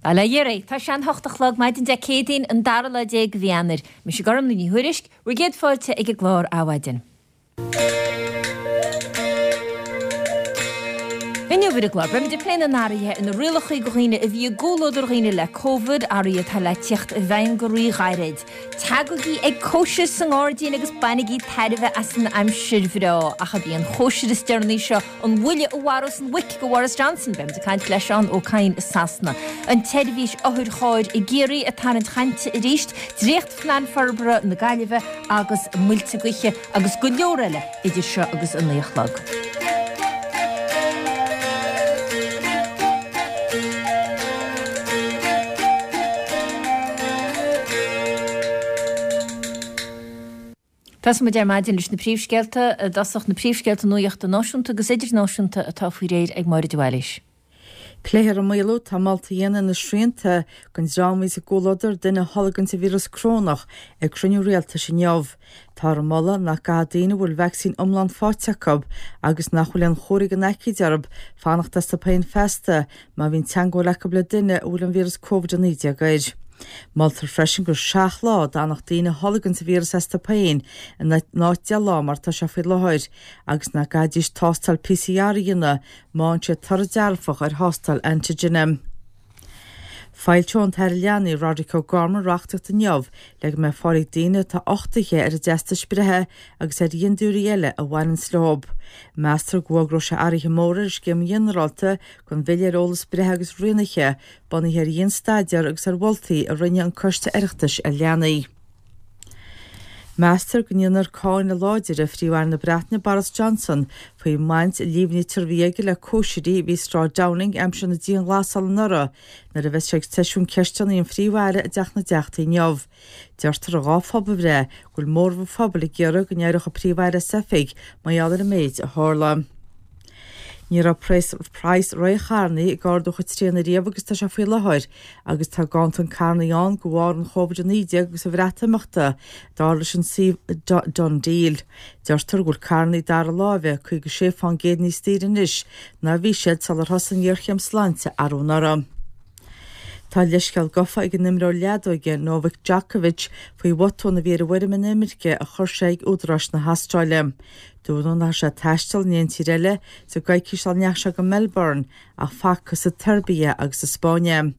Bail ó Dhia oraibh. Tá sé an hocht a chlog maidin Dé Céadaoin an dara lá déag de mhí Eanáir. Mise Gormlaith Ní Thuairisg, bhur gcéad fáilte ag an gclár Adhmhaidin. Inniu ar an gclár, beimid ag plé na n-athruithe ar na rialacha do dhaoine a bhí i gcomhluadar dhaoine le Covid, athruithe atá le tíocht i bhfeidhm go rí-ghairid. Tagaigí ag cóisir sa ngairdín agus bainigí tairbhe as an aimsir bhreá. Ach ab í an chóisir is deireanaí seo an bhuille a mharós an mhuic do Bhoris Johnson? Beimid ag caint le Seán Ó Cadhain i Sasana. An tseirbhís otharchairr i gCiarraí ag tarraingt chainte arís, Dréacht-Phlean Forbartha na Gaillimhe agus muilte gaoithe agus go leor eile idir seo agus a 9 a chlog. Tosóidh muid ar maidin leis na príomhscéalta i dtosach, na príomhscéalta nuachta náisiúnta agus idirnáisiúnta atá faoi réir ag Máire de Bhailís. Pléifear an maolú atá molta a dhéanamh ar na srianta don dream a bhíos i gcomhluadar duine a tholg an víreas corónach ag cruinniú rialtais inniu. Táthar ag moladh nach gcaithfidh daoine a bhfuil vacsaín iomlán faighte acu agus nach bhfuil aon chomharthaí den aicíd orthu fanacht astu féin feasta má bhíonn teagmháil acu le duine a bhfuil an víreas Covid-19 air. Moltar freisin gur 7 lá a d'fhanfadh daoine a tholg an víreas astu féin in áit 10 lá mar atá sé faoi láthair agus nach gcaithfidís tástáil PCR a dhéanamh má fhaigheann siad toradh dearfach ar thástáil antigine. Foilseoidh an tAire Leanaí, Roderic O'Gorman, reachtaíocht inniu le go mbeidh fáil ag daoine atá uchtaithe ar a dteastais breithe agus ar dhintiúirí eile a bhaineanns leo. Meastar go bhfógróidh sé athruithe móra ar an scéim ghinearálta don Bhille ar Eolas Breithe agus Rianaithe, bunaithe ar dhian-staidéar agus ar mholtaí a rinne an Coiste Oireachtais ar Leanaí. Meastar go ndéanfar cáineadh láidir ar Phríomh-Aire na Breataine Boris Johnson faoin mbaint a líomhnaítear a bhí aige le cóisirí a bhí i Sráid Downing aimsir na dianghlasála anuraidh nuair a bheas sé ag seisiún ceisteanna an Phríomh-Aire i dTeach na dTeachtaí inniu. Deirtear i dá phobalbhreith go bhfuil móramh an phobail ag iarraidh go n-éireodh an Príomh-Aire as oifig mar gheall ar an méid a tharla. Ní raibh praghas rogha charnaí ag ardú chomh tréan ariamh agus atá sé faoi láthair agus tá ganntan carnaí ann de bharr an Chóvid-19 agus an Bhreatimeachta, dar leis an suíomh DoneDeal. Deirtear go bhfuil carnaí dara láimhe 56 fán gcéad níos daoire anois ná a bhí siad sular thosaigh an ghéarchéim sláinte arú anuraidh. Tá leithscéal gafa ag an imreoir leadóige Novak Djokovic faoi bhotún a bhí ar an bhfoirm inimirce a chuir sé ag údaráis na hAstráile. Dúradh nach raibh sé ag taisteal in aon tír eile sa gcoicís sula ndeachaigh sé go Melbourne ach facthas sa tSeirbia agus sa Spáinn é.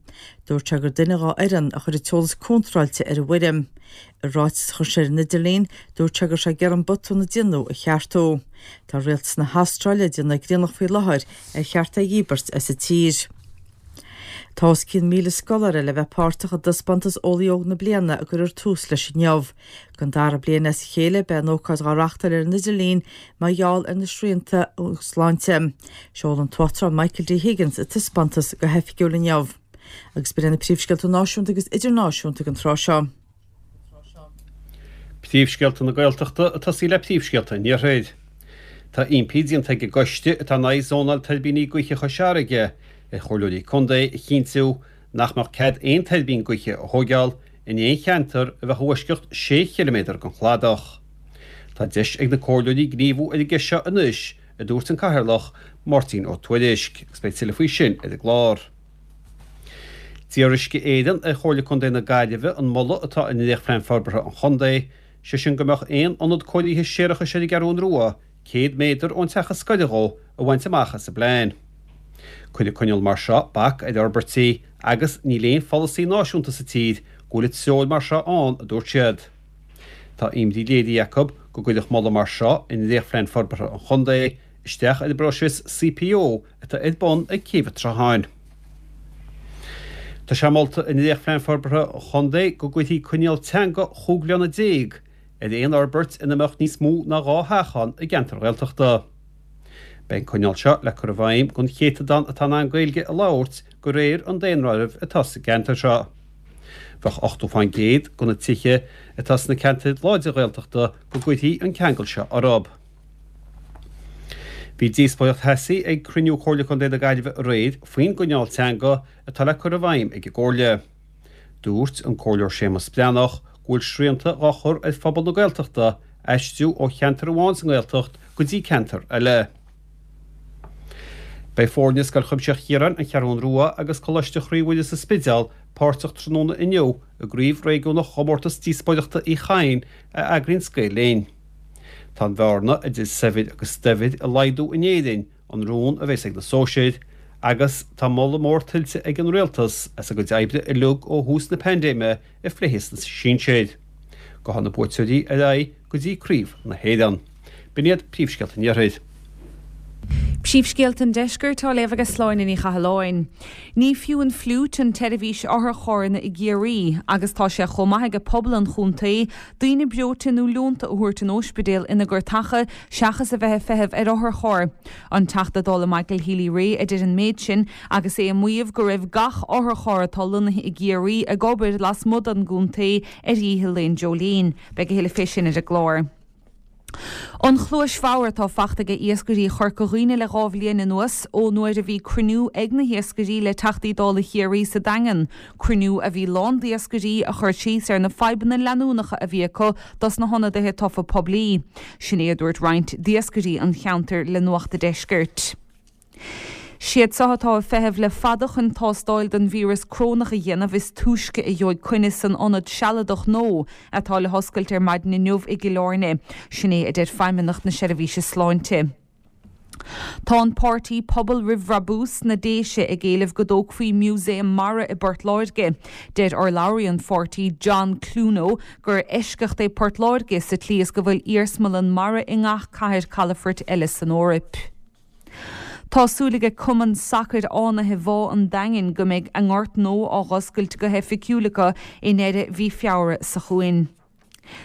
Dúirt sé gur duine dhá fhoireann a chuir an t-eolas contráilte ar an bhfoirm. I ráiteas a chuir sé ar an idirlíon, dúirt sé go raibh sé ag iarraidh an botún a déanadh a cheartú. Tá rialtas na hAstráile ag déanamh grionach faoi láthair ar cheart é a dhíbirt as an tír. Tá os cionn 1,000 scoláire le bheith páirteach i dtaispeántas Eolaí Óg na Bliana a gcuirfear tús leis inniu. Don dara bliain as a chéile, beidh an ócáid dhá reachtáil ar an idirlíon mar gheall ar na srianta sláinte. Seolfaidh an tUachtarán Michael D. Higgins an taispeántas go hoifigiúil inniu. Agus b'in iad na príomhscéalta náisiúnta agus idirnáisiúnta ag an tráth seo. Príomhscéalta na Gaeltachta ag tosaí le príomhscéalta an Iarthair. Tá impí déanta ag an gcoiste atá in aghaidh zónáil tuirbíní gaoithe Chois Fharraige ar chomhairleoirí contae a chinntiú nach mbeadh cead aon tuirbín gaoithe a thóigeáil in aon cheantar a bheadh i bhfoisceacht sé chiliméadar den chladach. Tá deis ag na comhairleoirí gníomhú ar an gceist seo anois, a dúirt an Cathaoirleach, Máirtín Ó Tuairisg, agus beidh tuilleadh faoi sin ar an gclár. D'iarr Uisce Éireann ar Chomhairle Contae na Gaillimhe an moladh atá i ndréachtphlean forbartha an chontae, sé sin go mbeadh aon ionad cóirithe séarachais ar an gCeathrún Rua 100 méadar ón teach is gaire dhó, a bhaint amach as an bplean. Cuirfidh coinníoll mar seo bac ar fhorbairtí agus níl aon pholasaí náisiúnta sa tír go bhfuil treoir mar seo ann, a dúirt siad. Tá imní léirithe acu go gcuirfeadh moladh mar seo i ndréachtphlean forbartha an chontae isteach ar an bpróiseas CPO atá ar bun ag Céibh an tSrutháin. Tá sé molta i ndréachtphlean forbartha an chontae go gcuirfí coinníoll teanga chúig bhliana déag ar aon fhorbairt ina mbeadh níos mó ná 2 theach ann i gceantar Ghaeltachta. Beidh an coinníoll seo le cur i bhfeidhm don chéatadán atá in ann Gaeilge a labhairt de réir an daonáirimh atá sa gceantar seo. Bheadh 80 fán gcéad de na tithe atá sna ceantair láidre Ghaeltachta go gcuirfí an ceangal seo orthu. Bhí díospóireacht theasaí ag cruinniú Chomhairle Contae na Gaillimhe aréir faoin gcoinníoll teanga atá le cur i bhfeidhm ag an gComhairle. Dúirt an Comhairleoir Séamus Breathnach go bhfuil srianta dhá chur ar phobal na Gaeltachta aistriú ó cheantar amháin sa nGaeltacht go dtí ceantar eile. Beidh foirne Scoil Chuimsitheach Chiaráin, An Cheathrún Rua agus Coláiste Chroí Mhuire sa Spidéal páirteach tráthnóna inniu i gCraobh Réigiúnach Chomórtas Díospóireachta Uí Chadhain a eagraíonns Gael Linn. Tá an bhearna idir saibhir agus daibhir ag laghdú in Éirinn, an rún a bheas ag na sóisir, agus tá moladh mór tuillte ag an Rialtas as a gcuid oibre uilig ó thús na paindéime i bhfliuchadh sna sinsir. Gabhfaidh na buaiteoirí ar aghaidh go dtí Craobh na hÉireann. B'in iad príomhscéalta an Iarthair. Príomhscéalta an Deiscirt á léamh ag Sláine Ní Chathalláin. Ní fiú an fhliúit an tseirbhís otharcharranna i gCiarraí agus tá sé chomh maith aige pobal an chontae daoine breoite nó leonta a thabhairt an óispidéil ina gcartacha seachas a bheith ag feitheamh ar otharcharr. An Teachta Dála Michael Healy-Rae a deir an méid sin agus é ag maíomh go raibh gach otharcharr atá lonnaithe i gCiarraí ag obair lasmuigh den gcontae ar oíche Lá Joleen. Beidh a thuilleadh fé sin ar an gclár. An chluais bhodhar atá fachta aige iascairí Chorca Dhuibhne le 2 bhliain anuas, ó nuair a bhí cruinniú ag na hiascairí le Teachtaí Dála Chiarraí sa Daingean, cruinniú a bhí lán d'iascairí a chuir síos ar na fadhbanna leanúnacha a bhí acu dos na hionadaithe tofa poiblí. Sin é a dúirt roinnt d'iascairí an cheantair le Nuacht a' Deiscirt. Siad seo atá ag feitheamh le fada chun tástáil don víreas crónach a dhéanamh is túisce a gheobhaidh coinne san ionad sealadach nua atá le hoscailt ar maidin inniu i gCill Airne. Sin é a deir Feidhmeannacht na Seirbhíse Sláinte. Tá an páirtí Pobal Roimh Bhrabús sna Déise ag éileamh go dtógfaí músaem mara i bPort Láirge. Deir urlabhraí an pháirtí John Cloono gur eisceacht é Port Láirge sa tslí is go bhfuil iarsmalann mara i ngach cathair calafoirt eile san Eoraip. Tá súil aige Cumann Sacair Fhánaithe Bhá an Daingin go mbeidh a ngort nua á dh'oscailt go hoifigiúil acu i ndeireadh mhí Feabhra seo chugainn.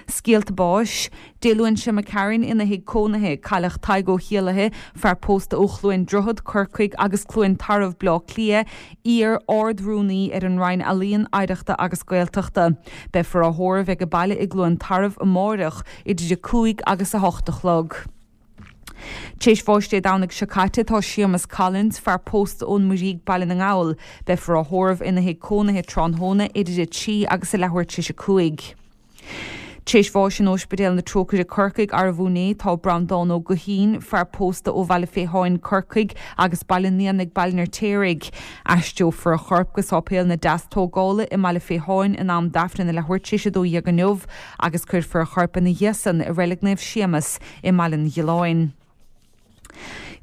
Scéalta báis. Dé Luain seo imigh tharainn ina thigh cónaithe, cailleadh Tadhg Ó hÉallaithe, fear pósta ó Chluain Droichead, Corcaigh agus Cluain Tarbh, Bleá Cliath, iar Ard-Rúnaí ar an Roinn Ealaíon, Oidhreachta agus Gaeltachta. Beifear á thórramh ag baile i gCluain Tarbh amáireach idir 5 agus 8 a chlog. T'éis bháis Dé Domhnaigh seo caite tá Séamus Collins, fear pósta ón Muirígh, Baile na nGall. Beifear á thórramh ina thigh cónaithe tráthnóna idir 3 agus a leathuair tar éis 5. T'éis bháis in Óispidéal na Trócaire Corcaigh arbh inné tá Breandán Ó Guithín, fear pósta ó Bhaile Féitháin, Corcaigh agus Baile an Éanaigh, Baile an Fheirtéaraigh. Aistreofar a chorp go Sáipéal na Deastógála i mBaile Féitháin in am d'Aifreann a leathuair tar éis 12 inniu agus cuirfear a chorp ina dhiaidh san i Reilig Naomh Séamus i mBaile an Ghiolláin.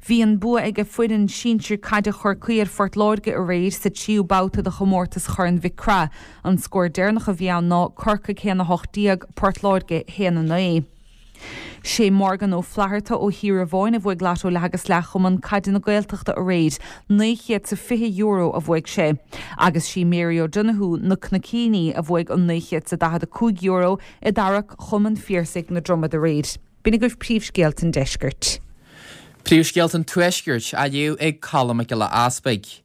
Bhí an bua ag foireann sinsir caide Chorcaí ar Phort Láirge aréir sa tríú babhta de chomórtas Chorn Mhic Craith. An scór deireanach a bhí ann ná Corcaigh 1, 18, Port Láirge 1, 9. Sé Morgan Ó Flatharta ó Thír a bhuaigh Lotto Leath agus Leath Chumann Caide na Gaeltachta aréir, €920 a bhuaigh sé. Agus sí Mary O'Donoghue, Na Cnoicíní, a bhuaigh an €945 i dtarrac Chumann Phiarsaigh na Dromad aréir. B'in agaibh príomhscéalta an deiscirt. Príomhscéalta an Tuaiscirt á léamh ag Colm Mac Giolla Easpaig.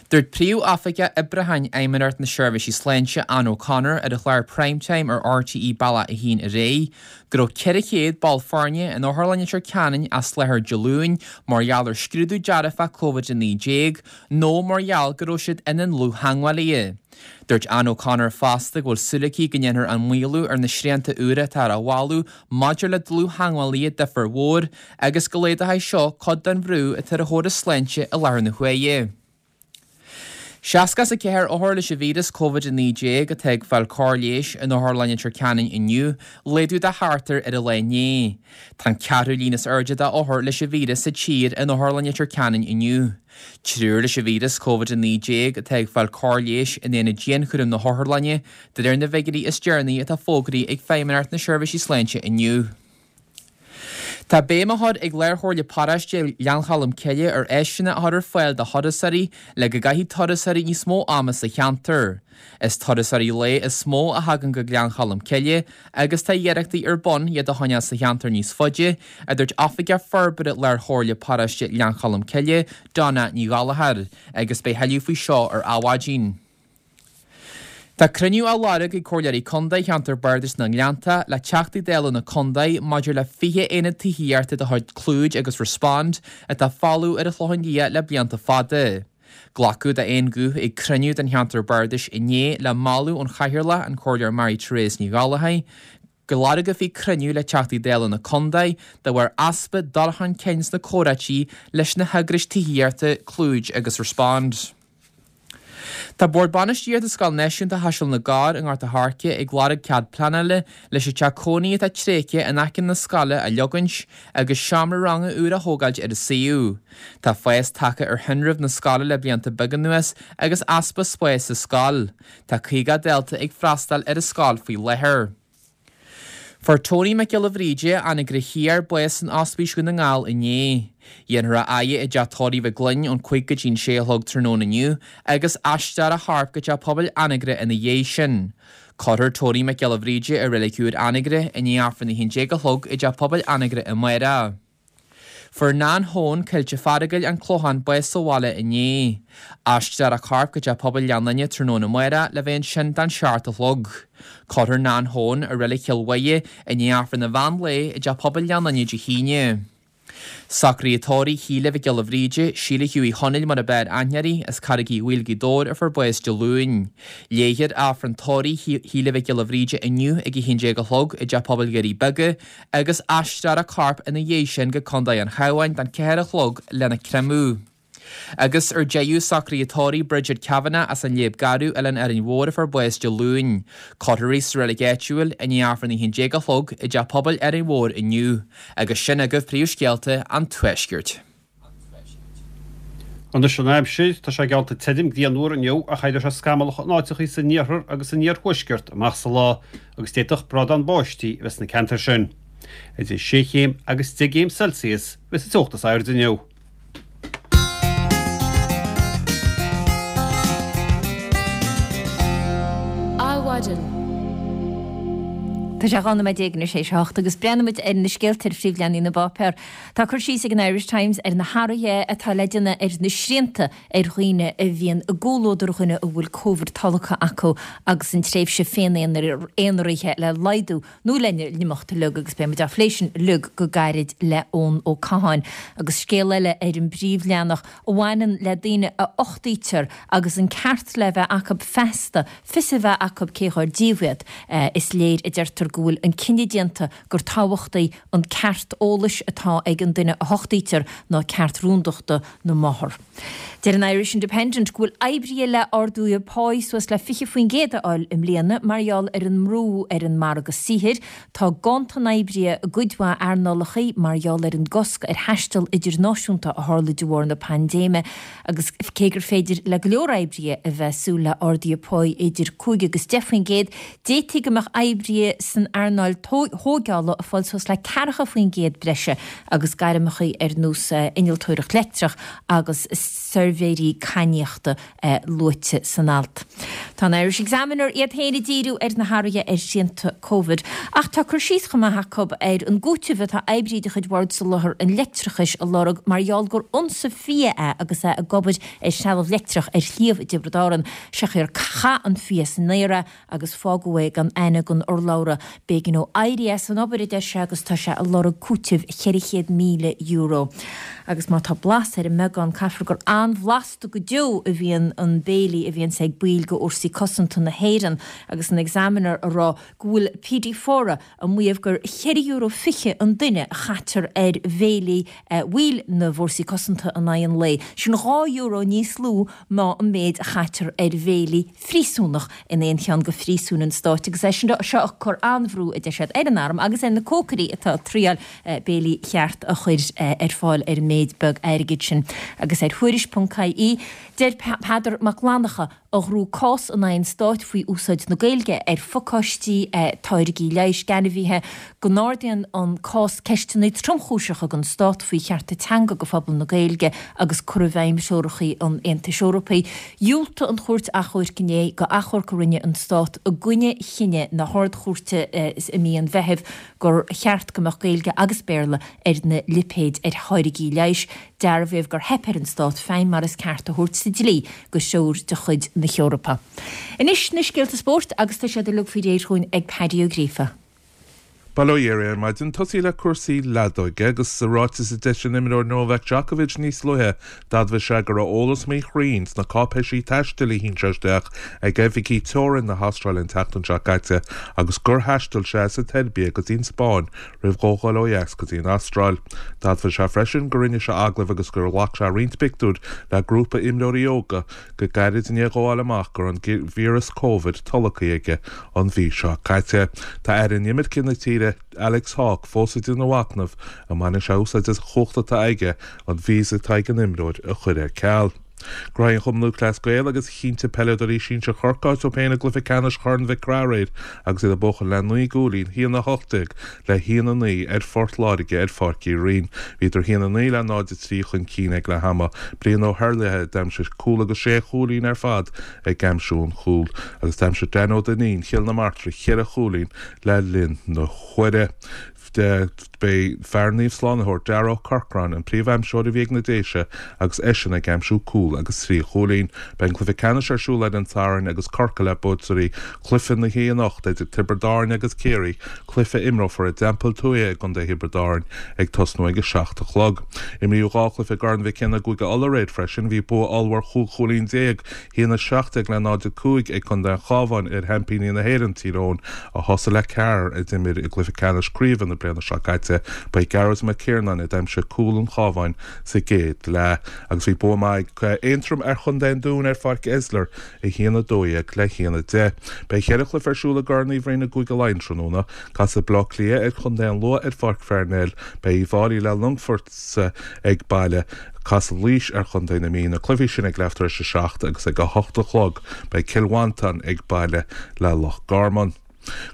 Dúirt Príomh-Oifigeach Oibriúcháin Fheidhmeannacht na Seirbhísí Sláinte, Anne O'Connor, ar an chlár Prime Time ar RTÉ Bealach 1 aréir, go raibh 400 ball foirne in Otharlann Leitir Ceanainn as láthair Dé Luain mar gheall ar scrúdú dearfach Covid-19 nó mar gheall go raibh siad ina ndlúth-theagmhálaithe. Dúirt Anne O'Connor fosta go bhfuil súil aici go ndéanfar an maolú ar na srianta úra atá á mholadh maidir le dlúth-theagmhálaithe difear mhór agus go laghdóidh seo cuid den bhrú atá ar an chóras sláinte i láthair na huaire. 64 othar leis an víreas Covid-19 atá ag fáil cóir leighis in Otharlann Leitir Ceanainn inniu, laghdú de sheachtar ar an lá inné. Tá an ceathrú líon is airde d'othair leis an víreas sa tír in Otharlann Leitir Ceanainn inniu. Triúr leis an víreas Covid-19 atá ag fáil cóir leighis in aonad dianchúraim na hotharlainne, de réir na bhfigiúirí is deireanaí atá fógraithe ag Feidhmeannacht na Seirbhísí Sláinte inniu. Tá béim á chur ag Lár-Chomhairle Paróiste Ghleann Cholm Cille ar áiseanna a chur ar fáil do thurasóirí le go gcaithfidh turasóirí níos mó ama sa cheantar. Is turasóirí lae is mó a thagann go Gleann Cholm Cille agus tá iarrachtaí ar bun iad a choinneáil sa cheantar níos faide, a dúirt Oifigeach Forbartha Lár-Chomhairle Paróiste Ghleann Cholm Cille, Donna Ní Ghallchóir, agus beidh thuilleadh faoi seo ar Adhmhaidin. Tá cruinniú á lorg ag Comhairleoirí Contae Cheantar Bardais na nGleannta le Teachtaí Dála na Contae maidir le 20 aonad tithíochta de chuid Clúid agus Respond atá folamh ar an Chlochán Liath le blianta fada. Glacadh d'aon ghuth ag cruinniú den Cheantar Bardais inné le moladh ón Chathaoirleach, an Comhairleoir Mary Therese Ní Ghallchóir. go lorgófaí cruinniú le Teachtaí Dála na contae de bharr easpa dul chun cinn sna comhráití leis na heagrais tithíochta Clúid agus Respond. Tá Bord Bainistíochta Scoil Náisiúnta Chaiseal na gCorr i nGort a' Choirce ag lorg cead pleanála leis an teach cónaí atá tréigthe in aice na scoile a leogaint agus seomra ranga úr a thógáilt ar an suíomh. Tá fás tagtha ar thinreamh na scoile le blianta beaga anuas agus easpa spáis sa scoil. Tá 50 dalta ag freastal ar an scoil faoi láthair. Fuair Tony Mac Giolla Bhríde, Anagaire Thiar, bás san Ospís Dhún na nGall inné. Dhéanfar a fhaire i dteach tórraimh Mhaigh Gloinn ón 5 go dtí'n 6 a chlog tráthnóna inniu agus aistreofar a chorp go teach pobail Anagaire ina dhiaidh sin. Cuirfear Tony Mac Giolla Bhríde i Reilig Úr Anagaire i ndiaidh Aifreann 11 a chlog i dteach pobail Anagaire amárach. Fuair Nan Hone, Coillte Fearagail, An Clochán, bás sa bhaile inné. Aistreofar a corp go Teach Pobail Ghleann Fhinne tráthnóna amárach le bheith ansin don seacht a chlog. Cuirfear Nan Hone i Reilig Chill Mhuire i ndiaidh Aifreann an mheán lae i dTeach Pobail Ghleann Fhinne Dé hAoine. Socruithe tórraimh Shíle Mhic Giolla Bhríde, Síle Hughie Chonaill mar ab fhearr aithne uirthi, as Carraig Uí Bhaoill, Gaoth Dobhair a fuair bás Dé Luain. Léifear Aifreann tórraimh Shíle Mhic Giolla Bhríde inniu ag 11 a chlog i dTeach Pobail Dhoirí Beaga agus aistreofar a corp ina dhiaidh sin go Contae an Chabháin don 4 a chlog lena creimeadh. Agus ar deireadh, socruithe tórraimh Bridget Kavanagh as an Léib Garbh, Oileán Árainn Mhór a fuair bás Dé Luain. Cuirfear í sa reilig áitiúil i ndiaidh Aifreann 11 a chlog i dTeach Pobail Árainn Mhór inniu. Agus sin agaibh príomhscéalta an Tuaiscirt. Anois an aimsir, tá sé geallta tirim grianmhar inniu ach éireoidh sé scamallach in áiteachaí san iarthar agus san iarthuaisceart amach sa lá agus d'fhéadfadh brádán báistí a bheith sna ceantair sin. Idir sé chéim agus 10 gcéim Celsius a bheas an teocht is airde inniu. Adhmhaidin. Tá sé 12 nóiméad anois théis a hocht agus breathnaímid ar na scéalta ar phríomhleathanaigh na bpáipéar. Tá cur síos ag an Irish Times ar na hathruithe atá le déanamh ar na srianta ar dhaoine a bhíonn i gcomhluadar dhuine a bhfuil Covid tolgtha acu agus an tréimhse féin-aonaraithe le laghdú nó lena n-imeacht uilig agus beidh muid á phlé sin uilig go gairid le Eoin Ó Catháin. Agus scéal eile ar an bpríomhleathanach a bhaineann le daoine a uchtaítear agus an ceart le bheith acu feasta fios a bheith acu cé dhár díobh iad. Is léir, a deirtear, go bhfuil an cinneadh déanta gur tábhachtaí an ceart eolais atá ag an duine a huchtaítear ná ceart rúndachta na máthar. Deir an Irish Independent go bhfuil oibrithe le arduithe páí suas le 20% a fháil i mbliana mar gheall ar an mbrú ar an margadh saothair. Tá ganntan oibrithe i gcuid mhaith earnálacha mar gheall ar an gcosc ar thaisteal idirnáisiúnta a tharla de bharr na paindéime agus cé gur féidir le go leor oibrithe a bheith ag súil le arduithe páí idir 5 agus 10%, D'fhéadfaí go mbeadh oibrithe san earnáil thóigeála ag fáil suas le 40% breise agus gairmeacha ar nós innealtóireacht leictreach agus suirbhéirí cainníochta luaite san alt. Tá an Irish Examiner iad féin ag díriú ar na hathruithe ar shrianta Covid ach tá cur síos chomh maith acu ar an gcúiteamh atá oibrí de chuid Bhord Soláthair an Leictreachais a lorg mar gheall gur ionsadh fia é agus é ag obair ar threalamh leictreach ar shliabh i dTiobraid Árann. Sé gur chaith an fia san aer é agus fágadh é gan aithne don urlabhra. B'éigean dó éirí as an obair, a deir sé, agus tá sé ag lorg cúitimh €400,000. Agus má tá blas ar an mbeagán, caithfear gur an-bhlasta go deo a bhíonn an béilí a bhíonns ag baill de Fhórsaí Cosanta na hÉireann agus an Examiner a rá go bhfuil PD Fora ag maíomh gur €4.20 an duine a chaitear ar bhéilí bhaill na bhFórsaí Cosanta in aghaidh an lae. Sin €2 níos lú ná an méid a chaitear ar bhéilí phríosúnach in aon cheann de phríosúin an stáit agus é seo ag cur an-bhrú, a deir siad, ar an arm agus ar na cócairí atá ag triáil béilí cheart a chur ar fáil ar an méid beag airgid sin. Agus ar Thuairisc.ie, deir Peadar Mac Fhlannchadha, a ghnóthaigh cás in aghaidh an stáit faoi úsáid na Gaeilge ar phacáistí táirgí leighis d'ainmhithe, go n-ardaíonn an cás ceisteanna tromchúiseacha don stát faoi chearta teanga do phobal na Gaeilge agus cur i bhfeidhm threoracha an Aontais Eorpaigh. Dhiúltaigh an Chúirt Achomhairc inné do achomharc a rinne an stát i gcoinne chinneadh na hArd-Chúirte i mí an Mheithimh gur cheart go mbeadh Gaeilge agus Béarla ar na lipéid ar tháirgí leighis. Dearbhaíodh gur theip ar an stát feidhm mar is ceart a thabhairt sa dlí do threoir de chuid na hEorpa. Anois na scéalta spóirt agus tá siad uilig faoi réir chugainn ag Paddy Ó Gríofa. Bail ó Dhia oraibh ar maidin. Tosaí le cúrsaí leadóige agus sa ráiteas a d'eisigh an imreoir Novak Djokovic níos luaithe, d'admhaigh sé go raibh eolas míchruinn sna cáipéisí taistil a shín sé isteach ag oifigí teorann na hAstráile an tseachtain seo caite agus gur thaistil sé as an tSeirbia go dtí an Spáinn roimh dhó dhul ó dheas go dtí an Astráil. D'admhaigh sé freisin gur rinne sé agallaimh agus gur ghlac sé roinnt pictiúr le grúpa imreoirí óga go gairid i ndiaidh dhó fháil amach go raibh an víreas Covid tolgtha aige an mhí seo caite. Tá Aire Inimirce na tíre, Alex Hawke, fós ag déanamh machnaimh an mbainfidh sé úsáid as an chumhacht atá aige an visa atá ag an imreoir a chur ar ceal. Gnóthaigh an Chumann Lúthchleas Gael agus chinntigh peileadóirí sinsir Chorcaí áit dóibh féin i gcluiche ceannais Chorn Mhic Craith aréir agus iad ag buachan le 9 gcúilín, 1-18 le 1-9 ar Phort Láirge ar Pháirc Uí Rinn. Bhíodar 1-9 le 0-3 chun cinn ag leath ama. Brian Ó hEarlaithe a d'aimsigh cúl agus sé chúilín ar fad ag aimsiú an chúil agus d'aimsigh Dan Ó Duinnín Chill na Martra cheithre chúilín le linn na huaire. B'é fear Naomh Slánaitheoir, Darragh Ó Corcráin, an príomh-aimseoir a bhí ag na Déise agus eisean ag aimsiú cúl agus 3 chúilín. Beidh an cluiche ceannais ar siúl ar an Satharn agus Corcaigh le buaiteoirí chluiche na hoíche anocht idir Tiobraid Árann agus Ciarraí, cluiche a imreofar i dTeampall Tuaithe i gContae Thiobraid Árann ag tosnú ag 7 a chlog. Imríodh 2 chluiche i gCorn Mhic Cionnaith i gCúige Uladh aréir freisin. Bhí bua ollmhór 15 chúilín, 1-17 le 0-5 ag Contae an Chabháin ar sheaimpíní na hÉireann, Tír Eoghain, a thosaigh le ceathrar a d'imir i gcluiche ceannais craoibhe na bliana seo caite. Ba é Gearóid Mac Ciarnáin a d'aimsigh cúl an Chabháin sa gcéad leath agus bhí bua maith ag Aontroim ar Chontae an Dúin ar Pháirc Esler, 1-12 le 1-10. Beidh cheithre chluiche ar siúl i gCorn Uí Bhroin i gCúige Laighean tráthnóna. Casfaidh Baile Átha Cliath ar Chontae an Lú ar Pháirc Pharnell. Beidh Uíbh Fhailí le Longfort ag baile. Casfaidh Laois ar Chontae na Mí. Na cluichí sin ag leath tar éis a 7 agus ag 8 a chlog. Beidh Cill Mhantáin ag baile le Loch Garman.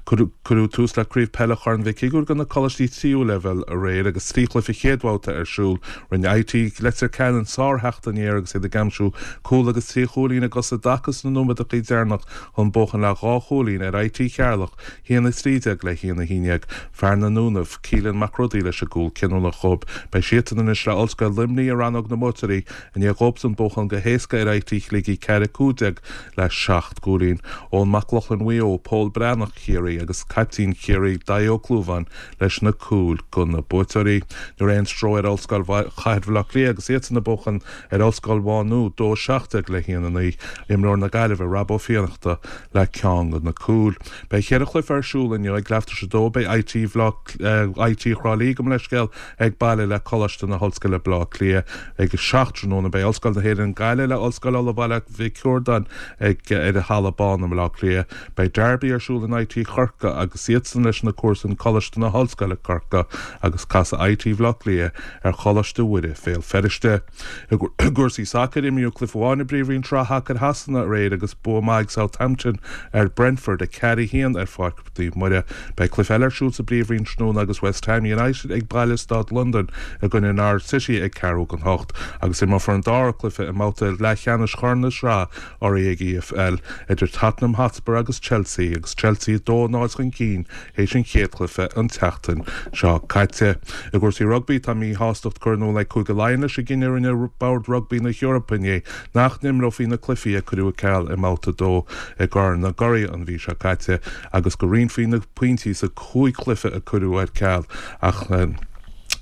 Cuireadh tús le Craobh Peile Chorn Mhic Shigiúir do na coláistí tríú leibhéal aréir agus 3 chluiche chéad bhabhta ar siúl. Rinne IT Leitir Ceanainn sár-theacht aniar agus iad ag aimsiú cúl agus 3 chúilín i gcosa i dtaca sna nóiméadacha deireanach chun buachan le dhá chúilín ar IT Cheatharlach, 1-13 le 1-11. Fear na nDúnaibh, Keelan Mac Rodaí leis an gcúl cinniúnach dhóibh. Beidh siadsan anois le Ollscoil Luimnigh i rannóg na mbuaiteoirí i ndiaidh dhóibhsan buachan go héasca ar IT Shligigh 4-15 le 7 gcúilín. Eoin Mac Lochlainn Mhaigh Eo, Pól Breathnach Chiarraí agus caiptín Chiarraí Daithí Ó Clúmháin leis na cúil do na buaiteoirí. Ní raibh aon stró ar Ollscoil Chathair Bhaile Átha Cliath agus iadsan ag buachan ar Ollscoil Mhá Nuad 2-17 le 1-9. Imreoir na Gaillimhe Rob Ó Fiannachta le ceann de na cúil. Beidh cheithre chluiche ar siúl inniu ag leath tar éis a dó. Beidh IT IT Thrá Lí gabh mo leithscéal ag baile le Coláiste na hOllscoile Baile Átha Cliath ag a 7 tráthnóna. Beidh Ollscoil na hÉireann Gaillimh le Ollscoil Uladh Baile Mhic Riordáin ag ar an Halla Bán i mBaile Átha Cliath. Beidh Derby ar siúl in IT Chorcaí agus iadsan leis na comharsain Coláiste na hOllscoile Corcaigh agus casfaidh IT Bhaile Átha Cliath ar Choláiste Mhuire Bhéal Feirste. I gcúrsaí sacair, imríodh cluiche amháin i bPríomhroinn Sraith Shacair Shasana aréir agus bua maith ag Southampton ar Brentford, 4-1 ar Pháirc Naomh Muire. Beidh cluiche eile ar siúl sa bPríomhroinn tráthnóna agus West Ham United ag baile i Staid Londan i gcoinne Norwich City ag ceathrú don hocht agus imreofar an dara cluiche i mbabhta leathcheannais Chorn na Sraithe REG EFL idir Tottenham Hotspur agus Chelsea agus Chelsea 2-0 chun cinn théis an chéad chluiche an tseachtain seo caite. I gcúrsaí rugbaí, tá míshástacht curtha in iúl ag Cúige Laighean leis an gcinneadh a rinne Bord Rugbaí na hEorpa inné nach n-imreofaí na cluichí a cuireadh ar ceal i mBabhta 2 i gCorn na gCuradh an mhí seo caite agus go roinnfí na pointí sa chúig chluiche a cuireadh ar ceal ach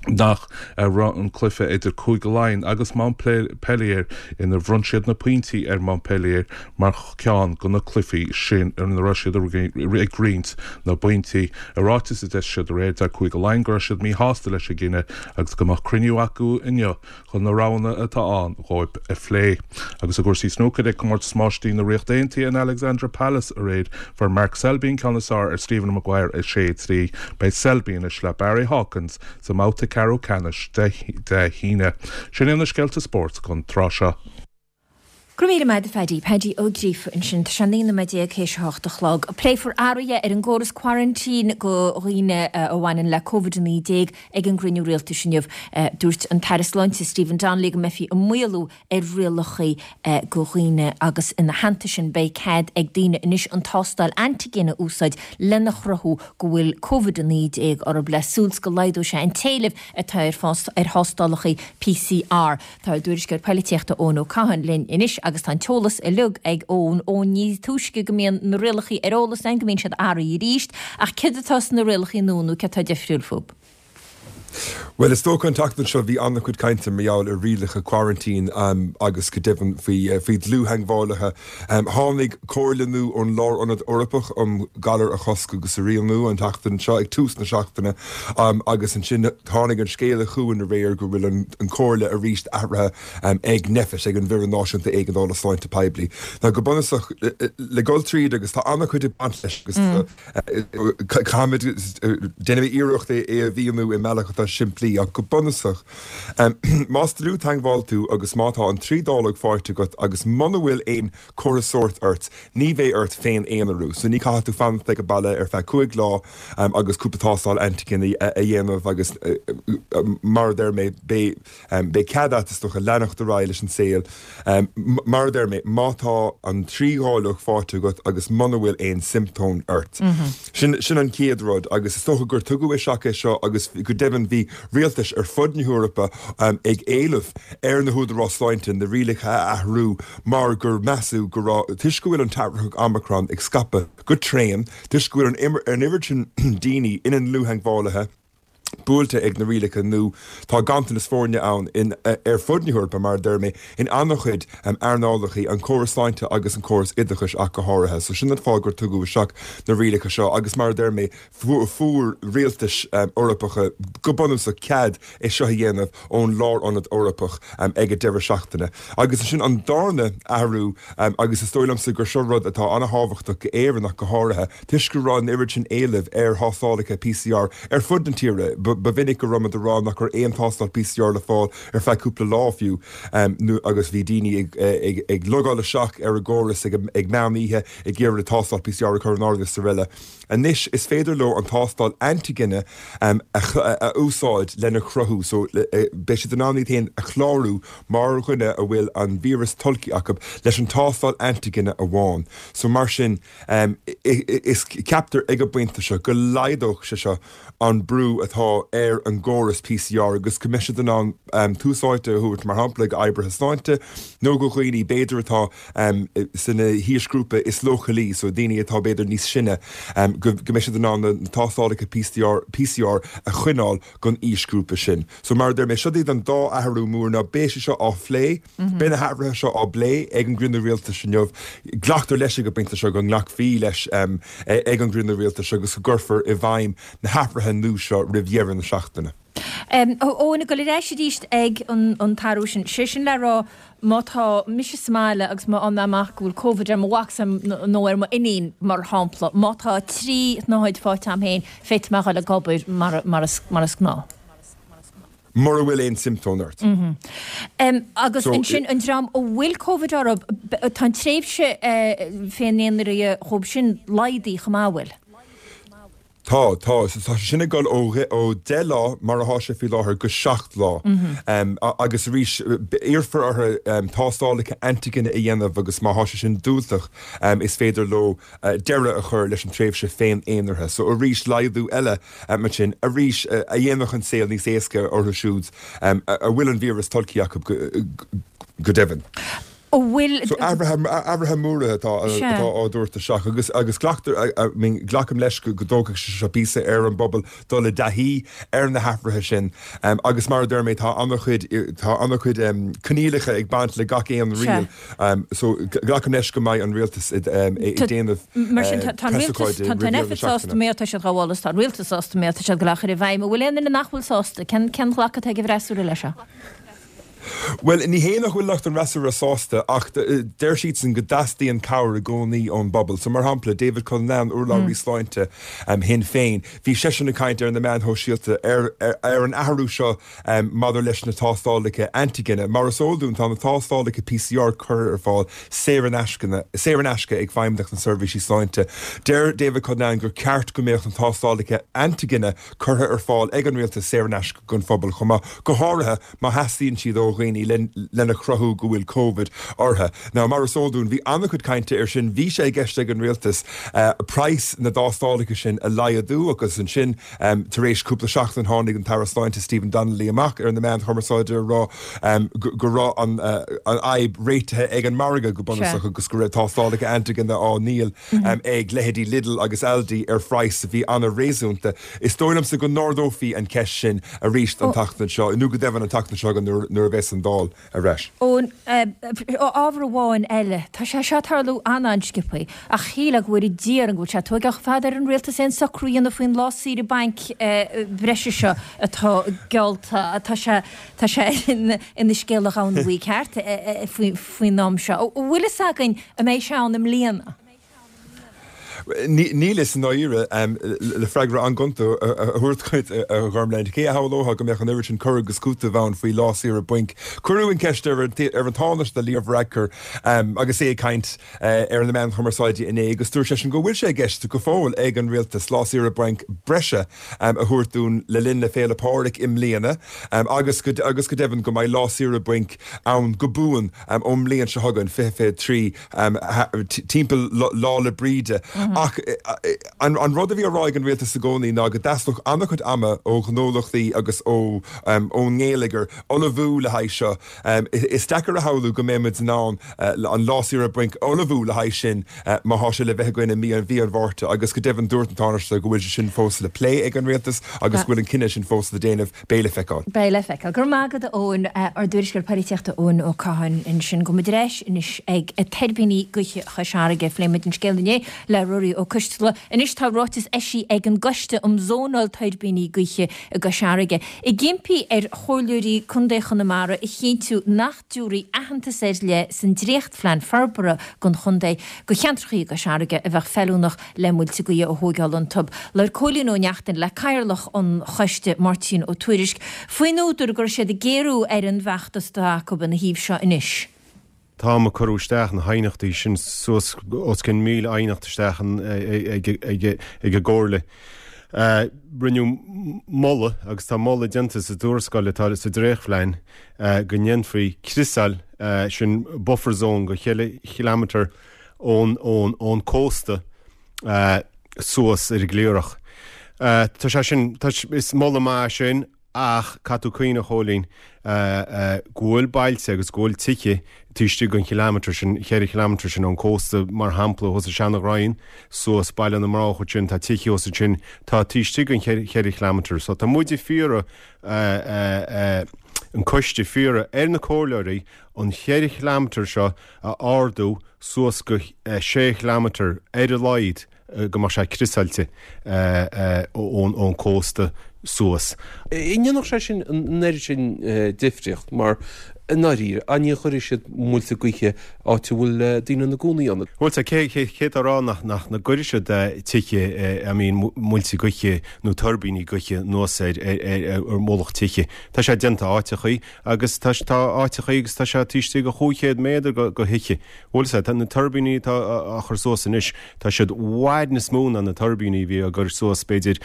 nach raibh an cluiche idir Cúige Laighean agus Montpellier inar bhronn siad na pointí ar Montpellier mar cheann de na cluichí sin ina raibh siad ag roinnt na bpointí. I ráiteas a d'eisigh siad aréir, deir Cúige Laighean go raibh siad míshásta leis an gcinneadh agus go mbeadh cruinniú acu inniu chun na roghanna atá ann dhóibh a phlé. Agus i gcúrsaí snúcair, ag Comórtas Máistrí na Ríochta Aontaithe in Alexandra Palace aréir, fuair Mark Selby an ceann is fearr ar Stephen Maguire 6-3. Beidh Selby anois le Barry Hawkins sa mbabhta ceathrú ceannais Dé hAoine. Sin iad na scéalta spóirt don tráth seo. Go raibh míle maith agat a Phaddy. Paddy Ó Gríofa ansin. Tá sé 19 nóiméad théis a hocht a chlog. Pléifear athruithe ar an gcóras quarantine do dhaoine a bhaineann le Covid-19 ag an gcruinniú rialtais inniu. Dúirt an tAire Sláinte Stephen Donnelly go mbeifí ag maolú ar rialacha do dhaoine agus ina theannta sin beidh cead ag daoine anois an tástáil antigen a úsáid lena chruthú go bhfuil Covid-19 orthu le súil 's go laghdóidh sé an t-éileamh atá ar thástálacha PCR. Tá ár dtuairisceoir poilitíochta Eoin Ó Catháin linn anois. Agus tá an t-eolas uilig ag Eoin. Eoin, ní túisce go mbíonn na rialachaí ar eolas againn go mbíonn siad athraithe arís, ach céard atá sna rialachaí nua nó céard atá difriúil fúb? Bhuel, is dócha an tseachtain seo bhí an-chuid cainte mar gheall ar rialacha quarantine agus go deimhin faoi faoi dhlúth-theagmhálaithe. Tháinig comhairle nua ón Lárionad Eorpach um Ghalair a Chosc agus a Rialú an tseachtain seo, ag tús na seachtaine, agus ansin tháinig an scéala chugainn aréir go bhfuil an chomhairle arís athraithe ag Nphet, ag an bhFoireann Náisiúnta Éigeandála Sláinte Poiblí. Now go bunúsach, le dul tríd, agus tá an-chuid ag baint leis agus caithfimid, déanfaidh mé iarracht é a mhíniú i mbealach atá simplí, ach go bunúsach, más dlúth-theagmháil tú agus má tá an trí dáileog faighte agat agus muna bhfuil aon chomhartha sóirt ort, ní bheidh ort féin-aonarú. So ní caithfidh tú fanacht ag an baile ar feadh 5 lá agus cúpla tástáil antigine a dhéanamh agus mar a deir mé, beidh. Beidh cead agat, is dócha, leanacht ar aghaidh leis an saol. Mar a deir mé, má tá an trí dháileog faighte agat agus muna bhfuil aon siomptóim ort. Sin, sin an chéad rud agus is dócha gur tugadh isteach é seo agus go deimhin bhí rialtais ar fud na hEorpa ag éileamh ar na húdaráis sláinte na rialacha a athrú mar gur measadh go raibh, toisc go bhfuil an t-athraitheach Omicron ag scaipeadh go tréan, toisc go bhfuil an oiread sin daoine ina ndlúth-theagmhálaithe, buailte ag na rialacha nó tá ganntanas foirne ann in ar fud na hEorpa, mar a deir mé, in an-chuid earnálacha, an córas sláinte agus an córas oideachais ach go háirithe. So sin an fáth gur tugadh isteach na rialacha seo agus mar a deir mé, fuair rialtais Eorpacha go bunúsach cead é seo a dhéanamh ón Lárionad Eorpach ag an deireadh seachtaine. Agus ansin an darna athrú agus is dóigh liomsa gur seo rud atá an-thábhachtach go Éirinn ach go háirithe, Toisc go raibh an oiread sin éilimh ar thástálacha PCR ar fud na tíre, ba mhinic go raibh muid ag rá nach raibh aon tástáil PCR le fáil ar feadh cúpla lá fiú, agus bhí daoine ag logáil isteach ar an gcóras ag meán oíche ag iarraidh tástáil PCR a chur in áirithe is araile. Anois is féidir leo an tástáil antigine a úsáid lena chruthú, so beidh siad in ann iad féin a chlárú mar dhuine a bhfuil an víreas tolgtha acu leis an tástáil antigine amháin. So mar sin. Is ceaptar ag an bpointe seo go laghdódh sé seo an brú atá ar an gcóras PCR agus go mbeidh siad in ann tús áite a thabhairt, mar shampla, d'oibrithe sláinte nó do dhaoine b'fhéidir atá sna haoisghrúpa is leochailí, so daoine atá b'fhéidir níos sine, go mbeidh siad in ann na tástálacha PCR a choinneáil don aoisghrúpa sin. So mar a deir mé, seo iad an dá athrú mór. Now beidh sé seo á phlé. Beidh na hathruithe seo á bplé ag an gcruinniú rialtais inniu. Glactar leis ag an bpointe seo go nglacfaí leis ag an gcruinniú rialtais agus go gcuirfear i bhfeidhm na hathruithe nua seo roimh dheireadh na seachtaine. Eoin, ag dul ar ais arís ag an t-athrú sin, sé sin le rá má tá mise sa mbaile agus má fhaigheann mé amach go bhfuil Covid ar mo mhac nó ar m'iníon, mar shampla, má tá 3 shnáthaid faighte agam féin, féadfaidh mé a dhul ag obair mar is gnáth. mura bhfuil aon siomptóim ort. Agus ansin an dream a bhfuil Covid orthu, tá an tréimhse féin-aonaraithe dhóibh sin laghdaithe chomh maith, an bhfuil? Tá, tá. So tá sé sin ag dul ó ó 10 lá, mar atá sé faoi láthair, go 7 lá. Agus arís, iarrfar orthu tástálacha antigine a dhéanamh agus má tá sé sin diúltach, is féidir leo deireadh a chur leis an tréimhse féin-aonaraithe. So arís, laghdú eile Ansin arís, a dhéanfadh an saol níos éasca orthu siúd a bhfuil an víreas tolgtha acu go deimhin. An bhfuil. So athruithe móra atá á dtabhairt isteach agus agus glactar, I mean glacaim leis go dtógfaidh sé seo píosa ar an bpobal dul i dtaithí ar na hathruithe sin agus mar a deir mé tá an-chuid tá an-chuid coinníollacha ag baint le gach aon riail. So, glacaim leis go mbeidh an rialtas ag déanamh Mar sin, tá an rialtas, tá an Nphet sásta má tá siad á mholadh is tá an rialtas sásta má tá siad ag dul á chur i bhfeidhm. An bhfuil aon duine nach bhfuil sásta? Cén cén ghlacadh atá ag an bhfreasúra leis seo? Bhuel, ní hé nach bhfuil lucht an fhreasúra sásta ach deir siadsan go dteastaíonn cabhair i gcónaí ón bpobal. So, mar shampla, David Cullinane, urlabhraí sláinte Shinn Féin, bhí seisean ag caint ar na meáin shóisialta ar ar an athrú seo Maidir leis na tástálacha antigine, mar is eol dúinn, tá na tástálacha PCR curtha ar fáil saor in saor in aisce ag Feidhmeannacht na Seirbhísí Sláinte. Deir David Cullinane gur ceart go mbeadh na tástálacha antigine curtha ar fáil ag an rialtas saor in aisce don phobal chomh maith, go háirithe má theastaíonn siad ó. dhaoine lena chruthú go bhfuil Covid orthu. Now, mar is eol dúinn, bhí an-chuid cainte air sin, bhí sé i gceist ag an rialtas praghas na dtástálacha sin a laghdú agus ansin tar éis cúpla seachtain tháinig an tAire Sláinte Stephen Donnelly amach ar na meáin chumarsáide a rá go raibh an fhadhb réitithe ag an margadh go bunúsach agus go raibh tástálacha antaigine á ndíol ag leithéidí Lidl agus Aldi ar phraghas a bhí an-réasúnta. Is dóigh liomsa go n-ardófaí an cheist sin arís an tseachtain seo, nó go deimhin an tseachtain seo chugainn nuair a bheas an Dáil ar ais. Eoin, ábhar amháin eile, tá sé seo ag tarlú an-an-sciobthaí, ach shílfeá go bhfóire Dia orainn go bhfuil sé ag tóigeáil chomh fada ar an rialtas aon socrú a dhéanamh faoin lá saoire bainc breise seo atá geallta. Tá sé, tá sé ina scéal a Dhomhan Bhuí ceart faoin am seo. An bhfuil fhios againn an mbeidh sé ann i mbliana? Níl fhios i ndáiríre, le freagra an-ghonta a thabhairt dhuit, a Ghormfhlaith. Cé a shamhlódh go mbeadh an oiread sin cur agus cúiteamh ann faoi lá saoire bainc? Cuireadh an cheist ar an Tánaiste Leo Varadkar agus é ag caint ar na meáin chumarsáide inné agus dúirt seisean go bhfuil sé i gceist go fóill ag an rialtas lá saoire bainc breise a thabhairt dúinn le linn na Féile Pádraig i mbliana agus go deimhin go mbeidh lá saoire bainc ann go buan ón mbliain seo chugainn, 2023. timpeall Lá 'le Bríde. Ach an rud a bhí á rá ag an rialtas i gcónaí ná go dteastódh an-chuid ama ó ghnólachtaí agus ón ngeilleagar ullmhú le haghaidh seo. Is deacair a shamhlú go mbeidh muid in ann an lá saoire bainc a ullmhú le haghaidh sin má thá sé le bheith againn i mí an Mhárta agus go deimhin dúirt an Tánaiste go bhfuil sé sin fós le plé ag an rialtas agus go bhfuil an cinneadh sin fós le déanamh. Beidh le feiceáil. Beidh le feiceáil. Go raibh maith agat a Eoin. Ár dtuairisceoir polaitíochta Eoin Ó Catháin ansin. Gabhfaidh muid ar ais anois ag tuirbíní gaoithe Chois Fharraige. Phléigh muid an scéal inné le Ruairí Ó Coistealbha. Anois tá ráiteas eisithe ag an gCoiste um Zónáil Tuirbíní Gaoithe i gCois Fharraige ag impí ar Chomhairleoirí Contae Chonamara a chinntiú nach dtabharfaí aitheantas ar leith san dréachtphlean forbartha don chontae do cheantracha i gCois Fharraige a bheadh feiliúnach le muilte gaoithe a thóigeáil iontu. Labhair Cóilín Ó Neachtain le Cathaoirleach an choiste, Máirtín Ó Tuairisg, faoin údar go raibh siad ag géarú ar an bhfeachtas atá acu ina thaobh seo anois. Táim ag cur isteach na haighneachtaí sin suas os cionn 1,000 aighneacht isteach ag an gComhairle. Rinneadh moladh, agus tá moladh déanta sa tuarascáil atá sa dréachtphlean, go ndéanfaí criosáil, sin buffer zone, go cheithre chileamatar ón cósta suas ar an gCliarach. Tá sé sin, is moladh maith é sin ach caithfidh tú cuimhneamh, a Chóilín, go bhfuil bailte agus go bhfuil tithe taobh istigh den chileamatar sin, cheithre chileamatar sin ón cósta, mar shampla, thuas i Seanadh Raghainn, suas Baile na mBroghach ansin, tá tithe thuas ansin, tá taobh istigh den cheithre chileamatar. So tá muid ag fiarraidh, an coiste ag fiarraidh ar na comhairleoirí an cheithre chileamatar seo a ardú suas go sé chileamatar ar a laghad go mbeadh sé criosáilte ón cósta suas. An ndéanfadh sé sin an oiread sin difríocht mar i ndáiríre, an ní chuirfidh siad muilte gaoithe áit a bhfuil daoine ina gcónaí ann? Bhuel, tá, cé cé atá ag rá nach nach gcuirfidh siad tithe, I mean muilte gaoithe nó tuirbíní gaoithe anuas ar ar ar mhullach tithe. Tá sé déanta áiteachaí agus tá tá áiteachaí agus tá sé taobh istigh de 500 méadar go go thithe. Bhuel, sea, tá na tuirbíní atá á chur suas anois, tá siad i bhfad níos mó ná na tuirbíní a bhí á gcur suas b'fhéidir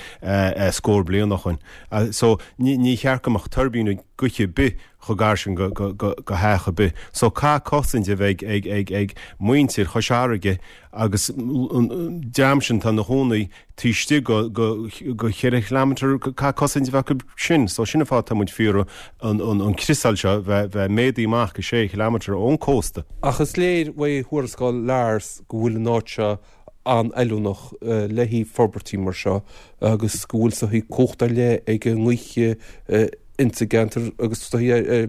scór bliain ó shoin. So, ní ní cheart go mbeadh tuirbín gaoithe ar bith chomh gar sin go go go go theach ar bith. So, caithfidh cosaint a bheith ag ag ag muintir Chois Fharraige agus an dream sin atá ina chónaí taobh istigh go go go cheithre chileamatar, caithfidh cosaint a bheith acu sin. So sin an fáth atá muid ag fiarraidh an an an criosáil seo bheith bheith méadaithe amach go sé chileamatar ón cósta. Ach is léir uaidh thuarascáil Lars go bhfuil an áit seo an-fheiliúnach le haghaidh forbairtí mar seo agus go bhfuil saghas cumhacht ar leith ag an ngaoth insa gceantar agus tá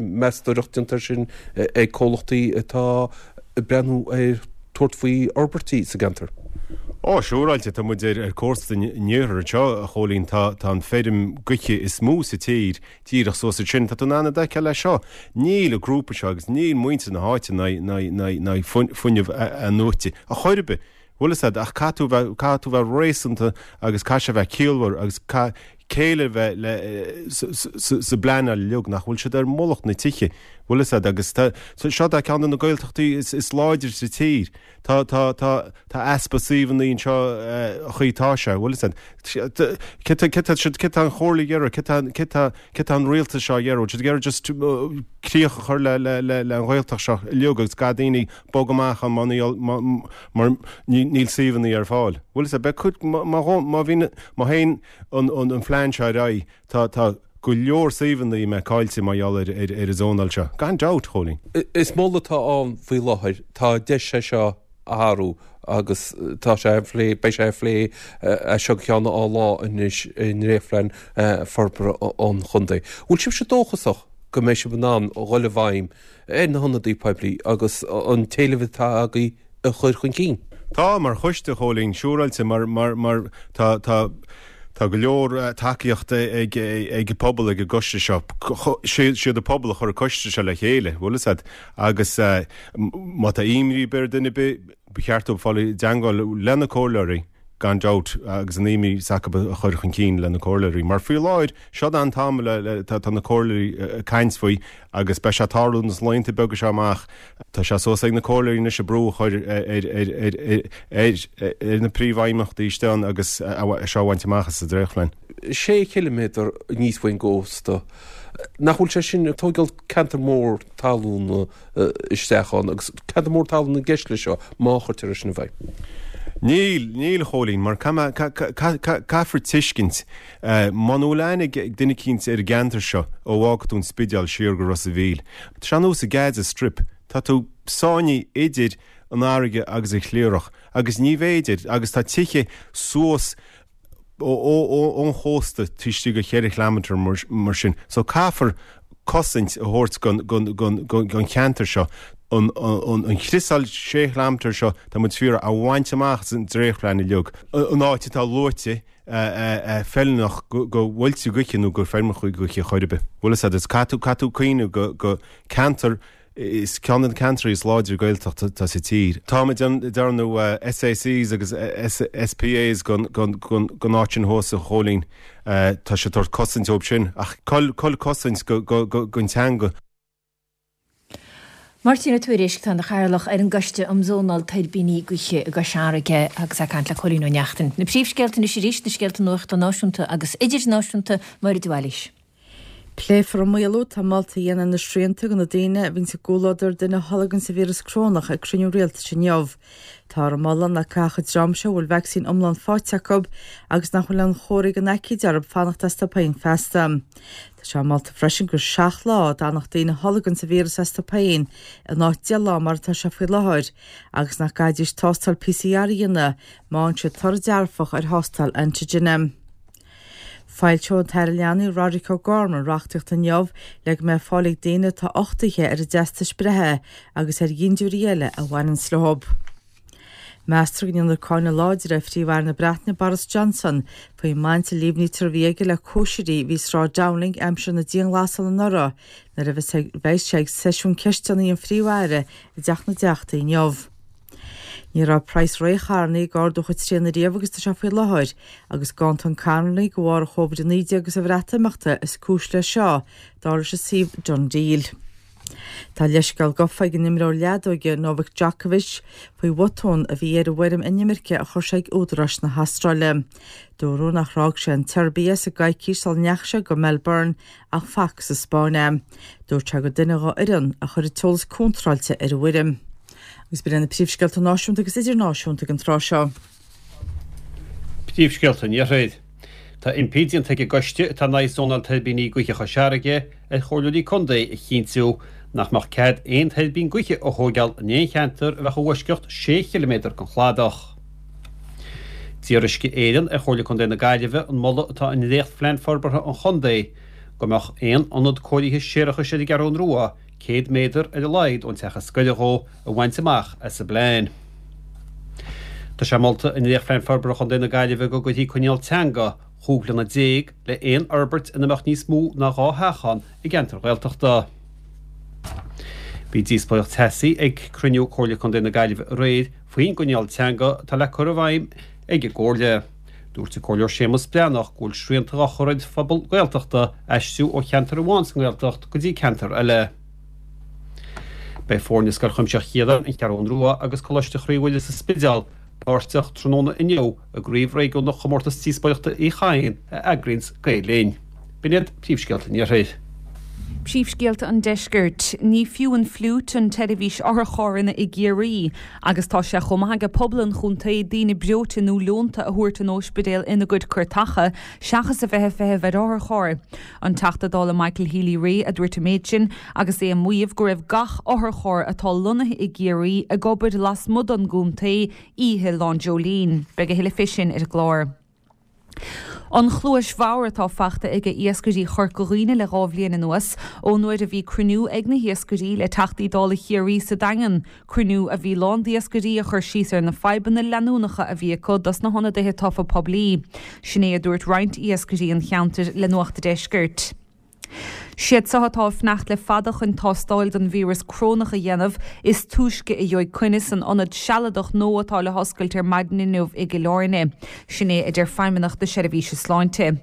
meastóireacht déanta air sin ag comhlachtaí atá ag breathnú ar tabhairt faoi fhorbairtí sa gceantar. Ó, siúráilte, tá muid ar cósta an iarthair anseo, a Chóilín, tá tá an feirm gaoithe is mó sa tír díreach suas ansin, tá tú in ann iad a fheiceáil leis seo. Níl an grúpa seo agus níl muintir na háite in aghaidh fuinneamh athnuaite ar chor ar bith. Bhfuil fhios a'd, ach caithfidh tú bheith, caithfidh tú bheith réasúnta agus caithfidh sé bheith ciallmhar agus caithfidh céille a bheith le, sa, sa, sa bpleanáil uilig, nach bhfuil siad ar mullach na tithe. Bhfuil fhios a'd, agus tá, seo tá ceann de na Gaeltachtaí is, is láidre sa tír. Tá, tá, tá, tá easpa suíomhanna anseo an chaoi atá sé, bhfuil fhios a'd. Cé tá, cé tá siad, cé tá an Chomhairle ag iarraidh, cé tá, cé tá, cé tá an rialtas seo ag iarraidh, bhfuil siad ag iarraidh just críoch a chur le, le, le, le an Ghaeltacht seo uilig agus gach daoine bog amach ann má níl, má, mar níl suíomhanna ar fáil. Bhfuil fhios a'd, beidh cuid, má, má, má bhíonn, má théann an, an, an phlean seo ar aghaidh, Tá, tá go leor suíomhanna a mbeidh caillte mar gheall ar, ar, ar an zónáil seo. Gan dabht, Chóilín. Is moladh atá ann faoi láthair. Tá deis é seo a athrú agus tá sé á phlé, beidh sé á phlé as seo go ceann dhá lá anois i ndréachtphlean forbartha an chontae. Bhfuil sibhse dóchasach go mbeidh sibh in ann dhul i bhfeidhm ar na hionadaithe poiblí agus an t-éileamh atá agaibh a chur chun cinn? Tá, mar choiste, a Chóilín, siúráilte, mar, mar, mar tá, tá, tá go leor tacaíochta ag, ag an pobal, ag an gcoiste seo. Siad an pobal a chuir an coiste seo le chéile, bhfuil fhios a'd, agus má tá imní ar bith ar duine ar bith, ba cheart dóibh fáil i dteangmháil le na comhairleoirí, gan dabht, agus an imní s'acu a chur chun cinn le na comhairleoirí. Mar faoi láthair, seo an t-am le, tá na comhairleoirí ag caint faoi agus beidh sé ag tarlú sna laethanta beaga seo amach. Tá sé suas ag na comhairleoirí anois an brú a chur ar na príomhfheidhmeachtaí istigh ann agus é seo a bhaint amach as an dréachtphlean. Sé chiliméadar aníos faoin gcósta, nach bhfuil sé sin ag tógáil ceantar mór talún isteach ann agus ceantar mór talún i gceist leis seo má chuirtear é sin i bhfeidhm? Níl, níl a Chóilín, mar caithfear tuiscint, muna bhfuil aithne ag duine eicínt ar an gceantar seo ó bhfágfaidh tú an Spidéal siar go Ros a' Mhíl, tá sé ar nós an Gaza Strip, tá tú sáinnithe idir an fharraige agus an chliathrach agus ní féidir, agus tá tithe suas ón chósta taobh istigh de cheithre chileamatar mar sin. So caithfear cosaint a thabhairt don cheantar seo. An chriosáil sé chileamatar seo tá muid ag iarraidh a bhaint amach as an dréachtphlean uilig. An áit atá luaite feiliúnach do mhuilte gaoithe nó do feirmeacha gaoithe chor ar bith. Bhfuil fhios agat, caithfidh tú cuimhneamh go ceantar Is ceann de na ceantraí is láidre Gaeltachta atá sa tír. Táimid ag déanamh SACs agus SPAs don áit sin thuas, a Chóilín. Tá sé ag tabhairt cosaint dóibh sin. Ach cá bhfuil cosaint don teanga? Máirtín Ó Tuairisg, atá ina chathaoirleach ar an gCoiste um Zónáil Tuirbíní Gaoithe i gCois Fharraige agus é ag caint le Cóilín Ó Neachtain. Na príomhscéalta anois arís, na scéalta nuachta náisiúnta agus idirnáisiúnta, Máire de Bhailís. Pléifear an maolú atá molta a dhéanamh ar na srianta do na daoine a bhíonns i gcomhluadar duine a tholganns an víreas corónach ag cruinniú rialtais inniu. Táthar ag moladh nach gcaithfeadh an dream seo a bhfuil vacsaín iomlán faighte acu agus nach bhfuil aon chomharthaí den aicíd orthu fanacht astu féin feasta. Tá sé molta freisin gur 7 lá a d'fhanfadh daoine a tholganns an víreas astu féin in áit 10 lá mar atá sé faoi láthair agus nach gcaithfidís tástáil PCR a dhéanamh má fhaigheann siad toradh dearfach ar thástáil antigine. Foilseoidh an tAire Leanaí Roderic O'Gorman reachtaíocht inniu le go mbeidh fáil ag daoine atá uchtaithe ar a dteastais breithe agus ar dhintiúirí eile a bhaineanns leo. Meastar go ndéanfar cáineadh láidir ar Phríomh-Aire na Breataine Boris Johnson faoin mbaint a líomhnaítear a bhí aige le cóisirí a bhí i Sráid Downing aimsir na dianghlasála anuraidh nuair a bheas sé ag seisiún ceisteanna an Phríomh-Aire i dTeach na dTeachtaí inniu. Ní raibh praghas rothair ag ardú chomh tréan ariamh agus tá sé faoi láthair, agus Gántan Connolly de bharr an Covid-19 agus an Bhreatimeachta is cúis leis seo, dar leis an suíomh DoneDeal. Tá leithscéal gafa ag an imreoir leadóige Novak Djokovic faoi bhotún a bhí ar an bhfoirm inimirce a chuir sé ag údaráis na hAstráile. Dúradh nach fhág sé an tSeirbia sa gcoicís sula ndeachaigh sé go Melbourne ach fágadh sa Spáinn é. Dúirt sé gur duine dhá fhoireann a chuir an t-eolas contráilte ar an bhfoirm. Agus b'in iad na príomhscéalta náisiúnta agus idirnáisiúnta ag an tráth seo. Príomhscéalta an Iarthair. Tá impí déanta ag an gcoiste atá in aghaidh zónáil tuirbíní gaoithe Chois Fharraige ar chomhairleoirí contae a chinntiú nach mbeadh cead aon tuirbín gaoithe a thóigeáil in aon cheantar a bheadh i bhfoisceacht sé chiliméadar den chladach. D'iarr Uisce Éireann ar Chomhairle Contae na Gaillimhe an moladh atá i ndréachtphlean forbartha an chontae go mbeadh aon ionad cóirithe séarachais ar an gCeathrún Rua 100 méadar ar a laghad ón teach is gaire dhó a bhaint amach as an bplean. Tá sé molta i ndréachtphlean forbartha Chontae na Gaillimhe go gcuirfí coinníoll teanga 15 bliana le haon fhorbairt ina mbeadh níos mó ná 2 theach ann i gceantar Ghaeltachta. Bhí díospóireacht teasaí ag cruinniú Comhairle Contae na Gaillimhe aréir faoin gcoinníoll teanga atá le cur i bhfeidhm ag an gComhairle. Dúirt an Comhairleoir Séamus Breathnach go bhfuil srianta á chur ar phobal Gaeltachta aistriú ó cheantar amháin sa nGaeltacht go dtí ceantar eile. Beidh foirne Scoil Chuimsitheach Chiaráin, An Cheathrún Rua agus Coláiste Chroí Mhuire sa Spidéal páirteach tráthnóna inniu i gCraobh Réigiúnach Chomórtas Díospóireachta Uí Chadhain a eagraíonns Gael Linn. B'in iad príomhscéalta an Iarthair. Príomhscéalta an Deiscirt. Ní fiú an fliúit an tseirbhís otharcharranna i gCiarraí agus tá sé chomh maith aige pobal an chontae daoine breoite nó leonta a thabhairt an óispidéal ina gcuid cairteacha seachas a bheith ag feitheamh ar otharcharr. An Teachta Dála Michael Healy-Rae a dúirt an méid sin agus é ag maíomh go raibh gach otharcharr atá lonnaithe i gCiarraí ag obair lasmuigh don gcontae oíche Lá an Dreoilín. Beidh a thuilleadh fé sin ar an gclár. An chluais bhodhar atá fachta aige iascairí Chorca Dhuibhne le 2 bhliain anuas, ón uair a bhí cruinniú ag na hiascairí le Teachtaí Dála Chiarraí sa Daingean, cruinniú a bhí lán d'iascairí a chuir síos ar na fadhbanna leanúnacha a bhí acu dos na hionadaithe tofa poiblí. Sin é a dúirt roinnt iascairí an cheantair le Nuacht a' Deiscirt. Siad seo atá ag fanacht le fada chun tástáil don víreas corónach a dhéanamh is túisce a gheobhaidh coinne san ionad sealadach nua atá le hoscailt ar maidin inniu i gCill Airne. Sin é a deir Feidhmeannacht na Seirbhíse Sláinte.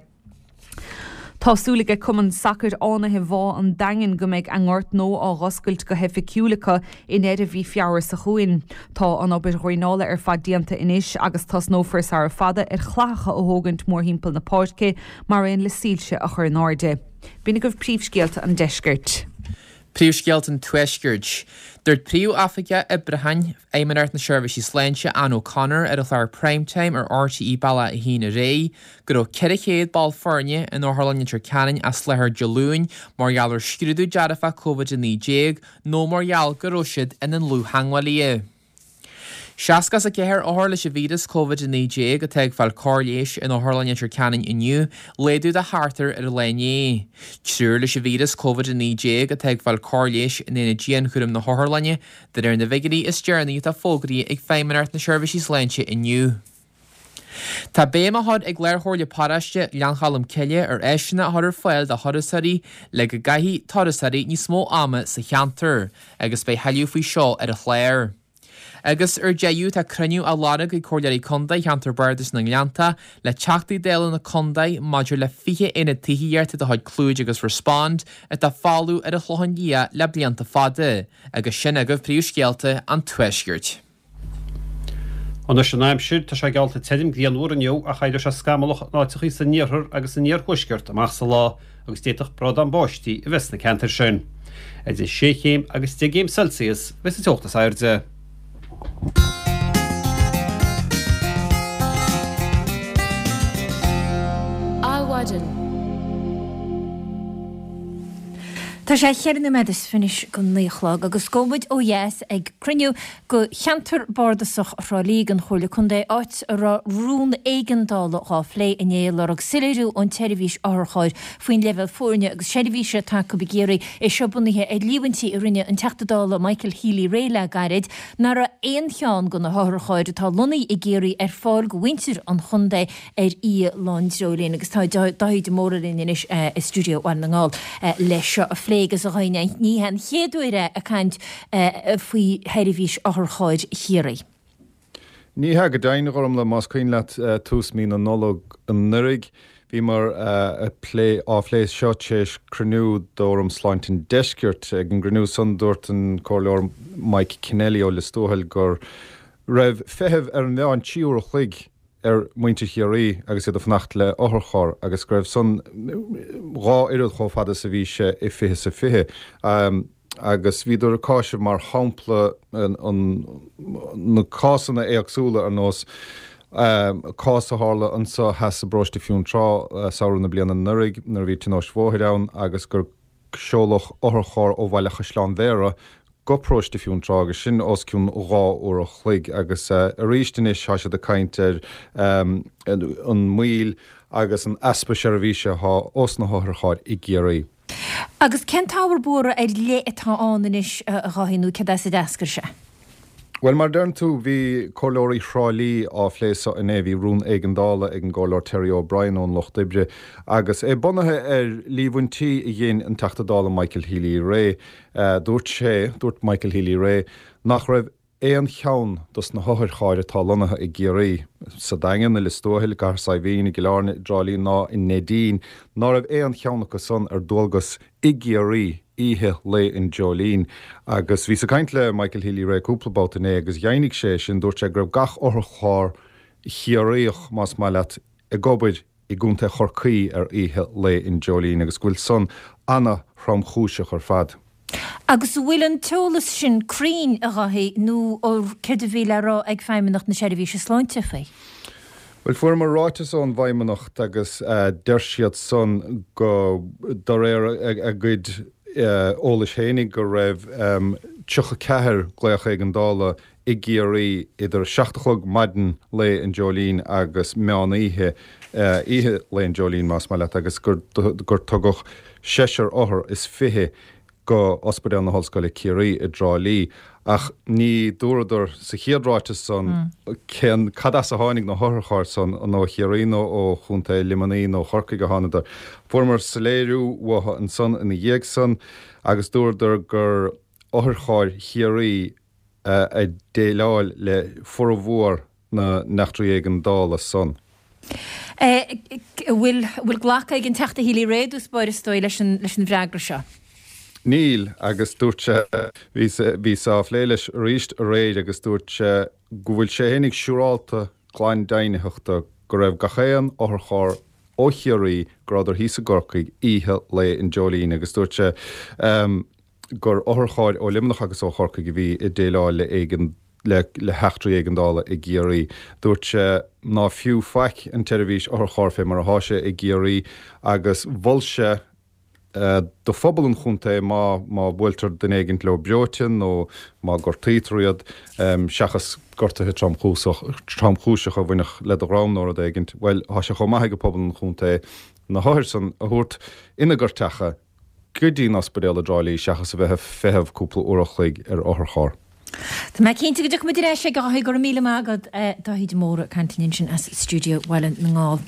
Tá súil aige Cumann Sacair Fhánaithe Bhá an Daingin go mbeidh a ngort nua á dh'oscailt go hoifigiúil acu i ndeireadh mhí Feabhra seo chugainn. Tá an obair dhraenála ar fad déanta anois agus tosnófar sara fada ar chlathacha a thógaint mórthimpeall na páirce mar aon le soilse a chur in airde. B'in agaibh príomhscéalta an deiscirt. Príomhscéalta an Tuaiscirt. Dúirt Príomh-Oifigeach Oibriúcháin Fheidhmeannacht na Seirbhísí Sláinte, Anne O'Connor, ar an chlár Prime Time ar RTÉ Bealach 1 aréir, go raibh 400 ball foirne in Otharlann Leitir Ceanainn as láthair Dé Luain mar gheall ar scrúdú dearfach Covid-19 nó mar gheall go raibh siad ina ndlúth-theagmhálaithe. 64 othar leis an víreas Covid-19 atá ag fáil cóir leighis in Otharlann Leitir Ceanainn inniu, laghdú de sheachtar ar an lá inné. Triúr leis an víreas Covid-19 atá ag fáil cóir leighis in aonad dianchúraim na hotharlainne, de réir na bhfigiúirí is deireanaí atá fógraithe ag Feidhmeannacht na Seirbhísí Sláinte inniu. Tá béim á chur ag Lár-Chomhairle Paróiste Ghleann Cholm Cille ar áiseanna a chur ar fáil do thurasóirí le go gcaithfidh turasóirí níos mó ama sa cheantar agus beidh thuilleadh faoi seo ar an chlár. Agus ar deireadh tá cruinniú á lorg ag Comhairleoirí Contae Cheantar Bardais na nGleannta le Teachtaí Dála na Contae maidir le 20 aonad tithíochta de chuid Clúid agus Respond atá folamh ar an Chlochán Liath le blianta fada agus sin agaibh príomhscéalta an Tuaiscirt. Anois an aimsir, tá sé geallta tirim grianmhar inniu ach éireoidh sé scamallach in áiteachaí san iarthar agus san iarthuaisceart amach sa lá agus d'fhéadfadh brádán báistí a bheith sna ceantair sin. Idir sé chéim agus 10 gcéim Celsius a bheas an teocht is airde. Adhmhaidin. Tá sé cheithre nóiméad is fiche go 9 a chlog agus gabhfaidh muid ó dheas ag cruinniú go Cheantar Bardasach Thrá Lí den Chomhairle Contae, áit a raibh rún éigeandála dhá phlé inné ag lorg soiléiriú ón tseirbhís otharchairr faoin leibhéal foirne agus seirbhíse atá acu i gCiarraí, é seo bunaithe ar líomhaintí a rinne an Teachta Dála Michael Healy-Rae le gairid nach raibh aon cheann de na hotharchairr atá lonnaithe i gCiarraí ar fáil go mhuintir an chontae ar Oíche Lá an Dreoilín agus tá Dáithí de Mórdha linn anois i stiúideo Bhaile na nGall leis seo a phlé agus a Dháithí, ní hé an chéad uair é ag caint faoi sheirbhís otharchairr Chiarraí. Ní hea go deimhin, a Ghormlaith, más cuimhin leat tús mí na Nollag anuraidh, bhíomar ag plé, á phlé seo tar éis cruinniú d'Fhóram Sláinte an Deiscirt. Ag an gcruinniú san dúirt an Comhairleoir Mike Kennelly ó Lios Tuathail go raibh feitheamh ar an mheán 3 uair a chloig ar mhuintir Chiarraí agus iad ag fanacht le otharcharr agus go raibh san dhá oiread chomh fada is a bhí sé i 20 is a 20. Agus bhíodar ag cáiseamh mar shampla na cásanna éagsúla ar nós cás a tharla anso theas i bparóiste Fionntrá samhradh na bliana anuraidh nuair a bhí tionóisc bhóthair ann agus gur seoladh otharcharr ó Bhaile Chaisleáin Bhéarra go paróiste Fionntrá agus sin os cionn 2 uair a chloig agus arís anois tá siad ag caint ar an moill agus an easpa seirbhíse atá ós na hotharchairr i gCiarraí. Agus cén t-ábhar buartha ar leith atá ann anois, a Dháithí, nó céard as a d'eascair sé? Bhuel, mar a deireann tú, bhí comhairleoirí Thrá Lí á phlé so inné. Bhí rún éigeandála ag an gComhairleoir Terry O'Brien ón Lucht Oibre agus é bunaithe ar líomhaintí a dhein an Teachta Dála Michael Healy-Rae. Dúirt sé, dúirt Michael Healy-Rae, nach raibh aon cheann dos na hotharchairr atá lonnaithe i gCiarraí, sa Daingean, i Lios Tuathail, i gCathair Saidhbhín, i gCill Airne, i dTrá Lí ná i Neidín, ná raibh aon cheann acu san ar dualgas i gCiarraí. Oíche Lae an Dreoilín. Agus bhíos ag caint le Michael Healy-Rae cúpla babhta inné agus dheimhnigh sé sin, dúirt sé go raibh gach otharcharr Chiarraíoch, más maith leat, ag obair i gContae Chorcaí ar Oíche Lae an Dreoilín agus go bhfuil san ana-thromchúiseach ar fad. Agus an bhfuil an t-eolas sin cruinn, a Dháithí, nó céard a bhí le rá ag Feidhmeannacht na Seirbhíse Sláinte faoi? Bhuel, fuaireamar ráiteas ón bhFeidhmeannacht agus deir siad san go, de réir a gcuid eolais fhéinig, go raibh 34 glaoch éigeandála i gCiarraí idir 7 a chlog maidin Lae an Dreoilín agus meán oíche, oíche Lae an Dreoilín más maith leat, agus gur tugadh seisear othar is 20 go Ospidéal na hOllscoile Ciarraí i dTrá Lí. Ach ní dúradar sa chéad ráiteas san cén, cad as a tháinig na hotharchairr san, an ó Chiarraí nó ó Chontae Luimnigh nó Chorcaigh a thánadar. Fuaireamar soiléiriú uathu ansan ina dhiaidh san agus dúradar gur otharchairr Chiarraí a dhéileáil le formhór na n-eachtraí éigeandála san. An bhfuil glactha ag an Teachta Healy-Rae i dtús báire is dóigh leis an bhfreagra seo? Níl, agus dúirt sé, bhíos á phlé leis arís aréir agus dúirt sé go bhfuil sé fhéinig siúrálta glan deimhnitheachta go raibh gach aon otharcharr ó Chiarraí go rabhadar thíos i gCorcaigh oíche Lae an Dreoilín agus dúirt sé gur otharchairr ó Luimneach agus ó Chorcaigh a bhí ag déileáil le éigean le le heachtraí éigeandála i gCiarraí. Dúirt sé ná fiú faic an tseirbhís otharcharr fé mar athá sé i gCiarraí agus mhol sé do phobal an chontae má má bhuailtear duine éigint leo breoite nó má gortaítear iad, seachas gortuithe tromchúiseach tromchúiseacha a bhainfeadh le do dhroim nó rud éigint, bhuel, thá sé chomh maith ag pobal an chontae na hothair san a thabhairt ina gcairteacha go dtí an ospidéal i dTrá Lí seachas a bheith ag feitheamh cúpla uair a chloig ar otharcharr. Tá mé cinnte go dtiocfaidh muid ar ais aige a Dháithí, go raibh míle maith agat. Dáithí de Mórdha ag caint linn ansin as stiúideo Bhaile na nGall.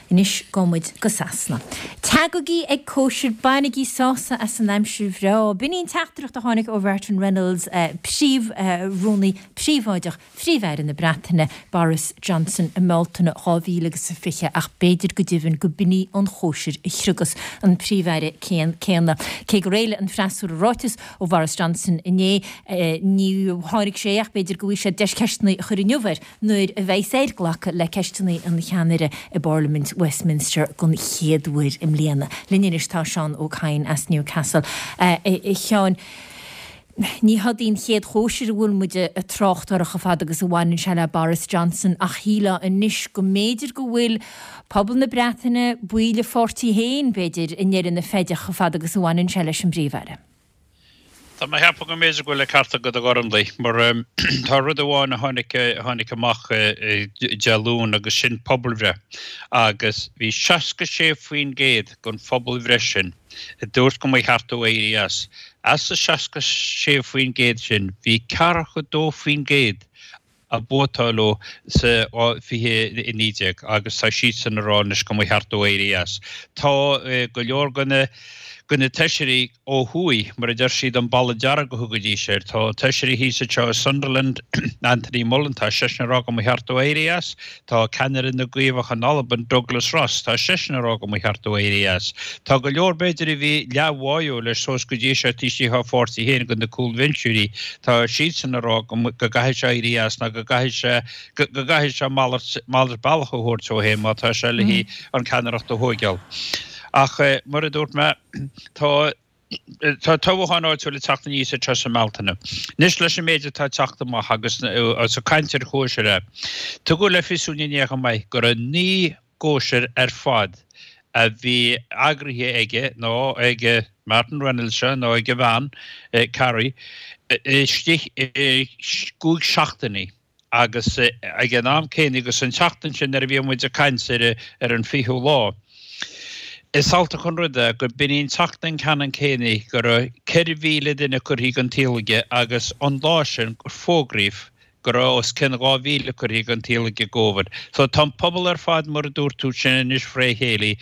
Anois gabhfaidh muid go Sasana. Tagaigí ag cóisir, bainigí sásamh as an aimsir bhreá. B'in í an teachtaireacht a tháinig ó Mhartin Reynolds, Príomh-Rúnaí Príobháideach Phríomh-Aire na Breataine, Boris Johnson i mBealtaine 2020 ach b'fhéidir go deimhin go b'in í an chóisir a chriogas an Príomh-Aire céanna. Cé gur éiligh an freasúra ráiteas ó Bhoris Johnson inné, ní tháinig sé ach b'fhéidir go bhfaighidh siad deis ceisteanna a chur inniu air nuair a bheas air glacadh le ceisteanna an cheannaire i bParlaimint Westminster den chéad uair i mbliana. Linn anois tá Seán Ó Cadhain as Newcastle. A Sheáin. Ní hiod í an chéad chóisir a bhfuil muid ag trácht uirthi chomh fada agus a bhaineann sé le Boris Johnson ach shílfeá anois go mb'fhéidir go bhfuil pobal na Breataine, baill a pháirtí féin, b'fhéidir, i ndeireadh na feide chomh fada agus a bhaineann sé leis an bPríomh-Aire. Tá mé ag ceapadh go mb'fhéidir go bhfuil an ceart agat a Ghormlaith, mar tá rud amháin a tháinig, a tháinig amach Dé Luain agus sin pobalbhreith agus bhí 66% den phobalbhreith sin a dúirt go mba cheart dó éirí as. As an 66% sin, bhí 42% a vótáil leo sa 2019 agus tá siadsan ag rá anois go mba cheart dó éirí as. Tá go leor de na de na feisirí ó thuaidh, mar a deir siad, an balla dearg a thugaidís air. Tá feisirí thíos anseo i Sunderland, Anthony Mullen, tá seisean ag rá go mba cheart dó éirí as. Tá ceannaire na gCaomhach in Albain, Douglas Ross, tá seisean ag rá go mba cheart dó éirí as. Tá go leor, b'fhéidir, a bhí leathbháúil leis suas go dtí seo taobh istigh dá pháirtí féin, de na cúlbhinseoirí, tá siadsan ag rá go gcaithfidh sé éirí as nó go gcaithfidh sé go gcaithfidh sé malairt malairt bealach a thabhairt dó féin má tá sé le an ceannaireacht a thóigeáil. Ach mar a dúirt mé, tá Tá toghchán áitiúil ag teacht aníos anseo sa mBealtaine. Anois leis an méid atá ag teacht amach agus ag caint ar chóisir, tugadh le fios dúinn inné chomh maith go raibh 9 gcóisir ar fad a bhí eagraithe aige nó ag Martin Reynolds seo nó ag a bhean, Carrie, istigh i gcúig seachtainí. Agus ag an am céanna, agus an tseachtain sin nuair a bhí muid ag caint ar ar an fichiú lá, is altach an rud é go b'in í an tseachtain ceannann céanna go raibh 4,000 duine curtha den tsaol aige agus an lá sin gur fógraíodh. Go raibh os cionn 2,000 curtha den tsaol ag an gCóivid. So tá an pobal ar fad mar a dúirt tú sin anois fré chéile.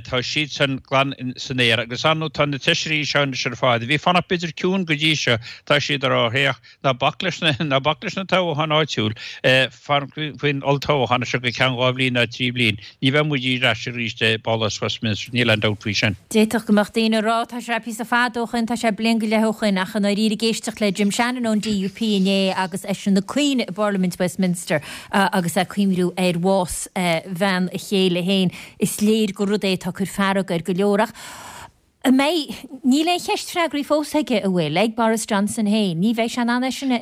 Tá siadsan glan san aer agus ar ndóigh tá na feisirí seo anois ar fad, a bhí ag fanacht b'fhéidir ciúin go dtí seo, tá siad ag rá féach, ná bac leis na, ná bac leis na toghcháin áitiúil, fan faoin olltoghchán seo go ceann 2 bhliain ná 3 bhliain. Ní bheidh muid ar ais arís i bPálás Westminster, níl aon dabht faoi sin. D'fhéadfadh go mbeadh daoine ag rá, tá sé píosa fada ó shoin, tá sé bliain go leith ó shoin, ach i ndáiríre ag éisteacht le Jim Shannon ón DUP inné agus eisean ag caoineadh i bParlaimint Westminster agus é ag cuimhniú ar bhás bhean a chéile féin, is léir gur rud é atá ag cur fearg ar go leor. Ach an mbeidh, níl aon cheist freagraithe fós aige, an bhfuil, ag Boris Johnson féin. Ní bheidh sé in ann é sin a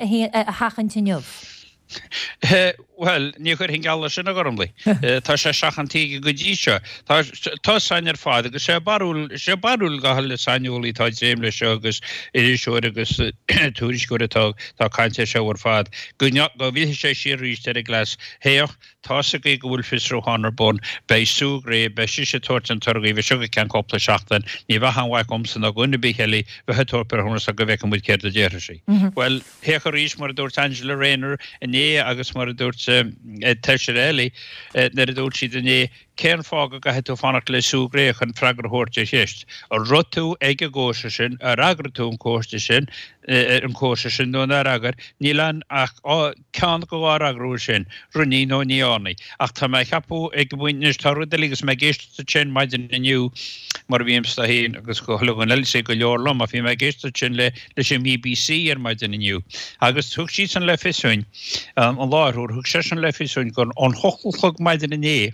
sheachaint inniu. Bhuel, ní chuirfinn geall leis sin, a Ghormlaith. Tá sé seachanta aige go dtí seo. Tá tá 's againn ar fad agus sé barúil, sé barúil gach uile saineolaí atá ag dréim leis seo agus iriseoir agus tuairisceoir atá atá ag caint air seo ar fad, go go bhfillfidh sé siar arís ar an gcleas. Féach, Tá's agaibh go bhfuil fiosrúchán ar bun. Beidh Sue Gray, beidh sise ag tabhairt an torthaí seo go ceann cúpla seachtain. Ní bheadh aon mhaith agamsa ná dhuine ar bith eile bheith ag tabhairt breithiúnas go bhfeicfidh muid céard a déarfaidh sí. Bhuel, féach arís mar a dúirt Angela Rayner inné agus mar a dúirt Taoiseach eile nuair a dúirt siad inné, cén fáth go gcaithfidh tú fanacht le Sue Gray chun freagra a thabhairt ar cheist? An raibh tú ag an gcóisir sin, ar eagraigh tú an cóiste sin, an cóisir sin nó nár eagraigh? Níl ann ach Ceann de dhá fhreagra uaidh sin, rinne nó ní dhearna. Ach tá mé a cheapadh ag an bpointe anois, tá rud eile agus mé ag éisteacht duit sin maidin inniu, mar a bhímse féin agus go chuile dhuine eile is go leor liom, ach bhí mé ag éisteacht duit sin le leis an mBBC ar maidin inniu. Agus thug siadsan le fios dúinn, an láithreoir, thug seisean le fios dúinn gur ón hocht a chlog maidin inné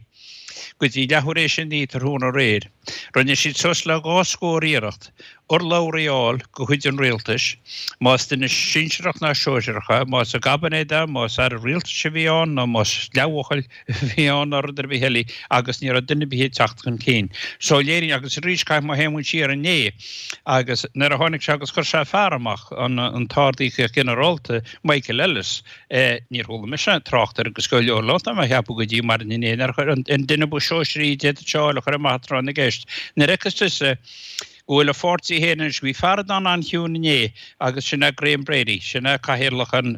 go dtí leathuair éis a naoi tráthnóna aréir, rinne siad suas le dhá scór iarracht urlabhraí a fháil de chuid an rialtais, más duine sinsearach ná sóisearach é, más i gcaibinéad é, más aire rialtais a bhí ann nó más leathbhuachaill a bhí ann nó rud ar bith eile agus ní raibh duine ar bith ag teacht chun cinn. So léiríonn, agus arís caithfidh mé théann siar inné agus nuair a tháinig sé agus chuir sé fear amach, an an tArd-Íocaíocht Ginearálta, Michael Ellis, níor chuala mise trácht air agus go leor leo tá mé a cheapadh go dtí maidin inné nuair a chuir an duine ba shóisearaí a d'fhéadfadh sé a fháil a chur amach tráth na gceist. Nuair a fheiceas tusa go bhfuil a pháirtí féin anois. Bhí fear a d'fhan an-chiúin inné agus sin é Graham Brady, sin é cathaoirleach an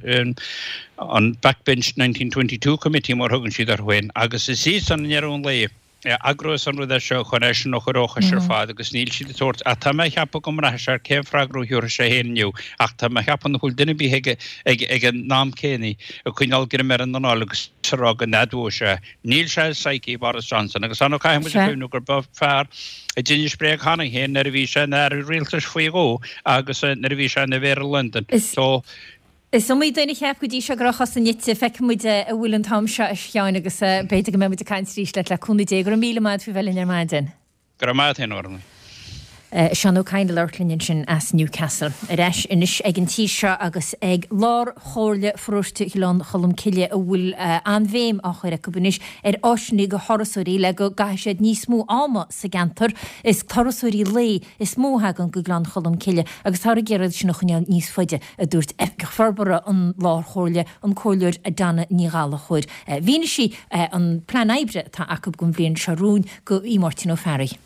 an Backbench 1922 Committee mar a thugann siad orthu féin agus is iadsan i ndeireadh an lae a eagrós an rud é seo chun eisean a chur ó chois ar fad agus níl siad ag tabhairt ach tá mé a cheapadh go mbraithfidh sé ar cén freagra a thabharfaidh sé féin inniu ach tá mé a cheapadh nach bhfuil duine ar bith ag ag ag an am céanna ag coinneáil greim ar an anáil agus ag rá go n-admhóidh sé Níl sé i psyche Boris Johnson agus ar ndóigh caithfidh muid a chuimhniú gur ba fear a d'inis bréag cheana féin nuair a bhí sé ina aire rialtais faoi dhó agus nuair a bhí sé ina Mhéara Londain. So. Is iomaí duine a cheap go dtí seo go raibh a chosa nite. Feicfidh muid an bhfuil an t-am seo, a Sheáin, agus b'fhéidir go mbeidh muid ag caint arís leat le cúnamh Dé. Go raibh míle maith agat faoi bheith linn ar maidin. Go raibh maith agat féin, a Ghormlaith. Seán Ó Cadhain ag labhairt linn ansin as Newcastle. Ar ais anois ag an tír seo agus ag Lár-Chomhairle Pharóiste Ghleann Cholm Cille a bhfuil an-bhéim á chur acu anois ar áiseanna do thurasóirí le go gcaithfidh siad níos mó ama sa gceantar. Is turasóirí lae is mó a thagann go Gleann Cholm Cille agus táthar ag iarraidh iad sin a choinneáil níos faide, a dúirt Oifigeach Forbartha an Lár-Chomhairle, an Comhairleoir Donna Ní Ghallchóir. Mhínigh sí an plean oibre atá acu don bhliain seo romhainn go Máirtín Ó Fearraigh.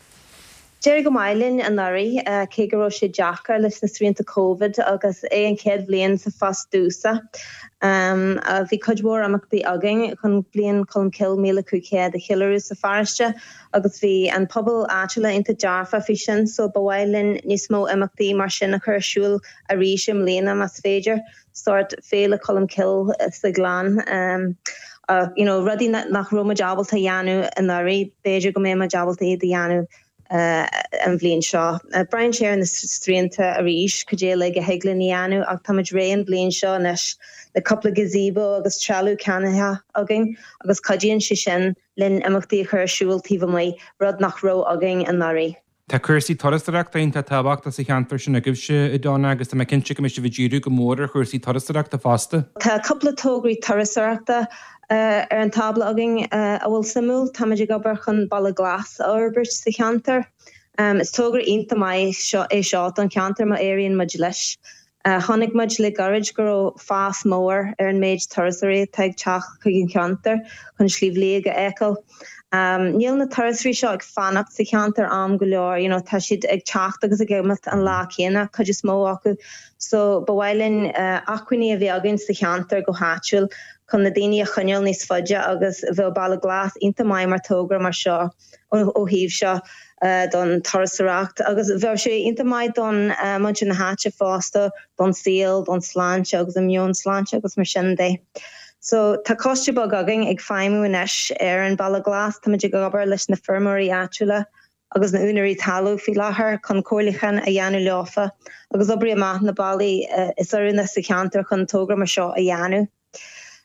D'éirigh go maith linn anuraidh, cé go raibh sé deacair leis na srianta Covid agus é an chéad bhliain sa phost domhsa. Bhí cuid mhór imeachtaí againn chun Bliain Cholmcille 1500 a cheiliúradh sa pharóiste agus bhí an pobal áitiúla iontach dearfa faoi sin so ba mhaith linn níos mó imeachtaí mar sin a chur ar siúl arís i mbliana más féidir. sórt Féile Cholmcille sa Ghleann. You know, rudaí nach raibh muid ábalta a dhéanamh anuraidh, b'fhéidir go mbeidh muid ábalta iad a dhéanamh an bhliain seo. Braitheann sé ar na srianta arís, cad é uilig a thig linn a dhéanamh ach tá muid réidh an bhliain seo anois le cúpla gazebo agus trealamh ceannaithe againn agus cuidíonn sé sin linn imeachtaí a chur ar siúl taobh amuigh, rud nach raibh againn anuraidh. Tá cúrsaí turasóireachta iontach tábhachtach sa cheantar sin agaibhse, a Donna, agus tá mé cinnte go mbeidh sibh ag díriú go mór ar chúrsaí turasóireachta fosta. Tá cúpla tograí turasóireachta ar an tábla againn a bhfuil suimiúil. Táimid ag obair chun Baile Glas a fhorbairt sa cheantar. Is togra iontach maith é seo don cheantar má éiríonn muid leis. Chonaic muid le gairid go raibh fás mór ar an méid turasóirí atá ag teacht chuig an cheantar chun Sliabh Liag a fheiceáil. Níl na turasóirí seo ag fanacht sa cheantar am go leor, you know, tá siad ag teacht agus ag imeacht an lá céanna, cuid is mó acu. So ba mhaith linn acmhainní a bheith againn sa cheantar go háitiúil chun na daoine a choinneáil níos faide agus bheadh Baile Glas iontach maith mar togra mar seo ó thaobh seo don turasóireacht agus bheadh sé iontach maith don muintir na háite fosta, don saol, don sláinte agus an meon sláinte agus mar sin de. So tá coiste beag againn ag feidhmiú anois ar an Baile Glas. Táimid ag obair leis na feirmeoirí áitiúla agus na úinéirí talún faoi láthair chun comhairliúchán a dhéanamh leofa agus oibriú amach na bealaí is oiriúnaí sa cheantar chun togra mar seo a dhéanamh.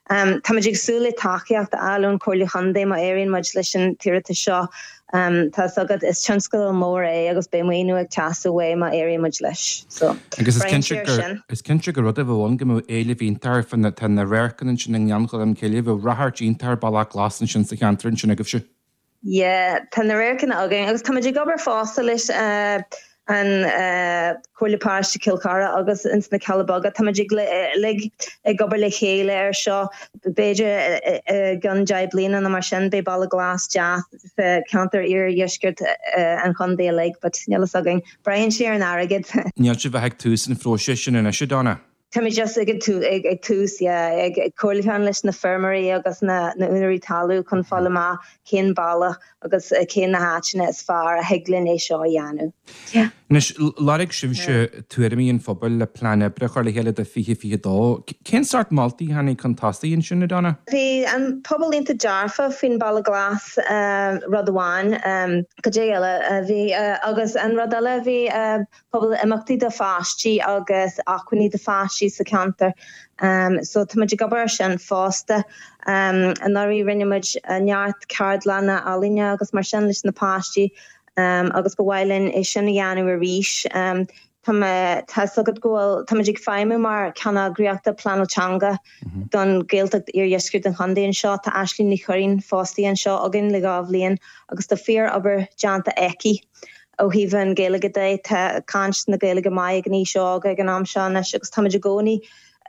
Táimid ag súil le tacaíocht a fháil ón Chomhairle Chontae má éiríonn muid leis an t-iarratas seo. Tá 'fhios agat, is tionscadal mór é agus beidh maoiniú ag teastáil uaidh má éiríonn muid leis. So, Agus is braitheann cinnte sé ar gur sin. is cinnte gur rud a bheadh ann go mbeadh éileamh iontach air fá na tá na radharcanna ansin i nGleann Cholm Cille, bheadh ráchairt iontach ar Bealach Glas ansin sa cheantar ansin agaibhse. Yeah, tá na radharcanna againn agus táimid ag obair fosta leis an Comhairle Paróiste Chill Chartha agus ins na Cealla Beaga. Táimid uilig ag obair le chéile ar seo. B'fhéidir i gceann 10 bliana nó mar sin beidh Baile Glas deas sa cheantar iardheisceart an chontae uilig, but níl fhios againn. Braitheann sé ar an airgead. Níl sibh ach ag tús an phróisis sin anois, a Donna? Táimid just ag ag tús, yeah, ag comhairliúchán leis na feirmeoirí agus na úinéirí talún chun fáil amach cén bealach agus cén na háiteanna is fearr a thig linn é seo a dhéanamh. Yeah. Anois, lorg sibhse tuairimí an phobail le plean oibre a chur le chéile do 2022. Cén sórt moltaí a tháinig chun tosaigh ansin, a Donna? Bhí an pobal iontach dearfa faoin Baile Glas, rud amháin. Cad é eile a bhí? Agus an rud eile a bhí, Pobal imeachtaí do pháistí agus acmhainní do pháistí sa cheantar. So tá muid ag obair ar sin fosta. Anuraidh rinne muid neart ceardlanna ealaíne agus mar sin leis na páistí agus ba mhaith linn é sin a dhéanamh arís. Tá mé, tá 'fhios agat go bhfuil, tá muid ag feidhmiú mar ceanneagraíochta pleanáil teanga don Ghaeltacht Iardheisceart an Chontae anseo. Tá Aisling Ní Churraoin fostaithe anseo againn le 2 bhliain agus tá fíor obair déanta aici. Ó thaobh an Ghaeilge de, tá caint na Gaeilge maith ag an aois óg ag an am seo anois agus táimid i gcónaí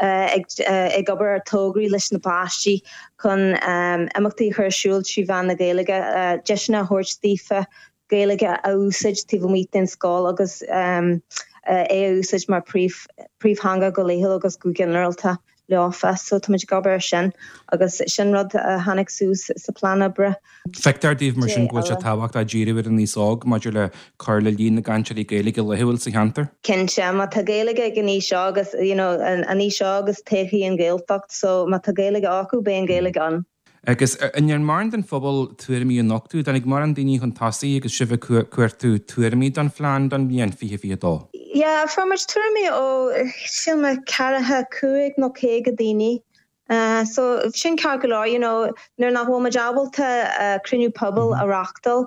ag obair ar tograí leis na páistí chun imeachtaí a chur ar siúl trí mheán na Gaeilge, deiseanna a thabhairt daofa Gaeilge a úsáid taobh amuigh den scoil agus é a úsáid mar príomhtheanga go laethúil agus go ginearálta. leofa. So táimid ag obair ar sin agus sin rud a tháinig suas sa plean oibre. Feictear daoibh mar sin go bhfuil sé tábhachtach díriú ar an aos óg maidir le cur le líon na gcainteoirí Gaeilge laethúil sa cheantar? Cinnte, má tá Gaeilge ag an aois óg is, you know, an aois óg is todhchaí an Ghaeltacht so má tá Gaeilge acu beidh an Ghaeilge ann. Agus an ndearna mórán den phobal tuairimí a nochtadh? Dtáinig mórán daoine chun tosaigh agus sibh ag cuartú tuairimí don phlean don bhliain 2022? Yeah, fuair muid tuairimí ó, sílim, ceathracha cúig nó 50 daoine. So, sin ceart go leor, you know, nuair nach bhfuil muid ábalta cruinniú pobail a reachtáil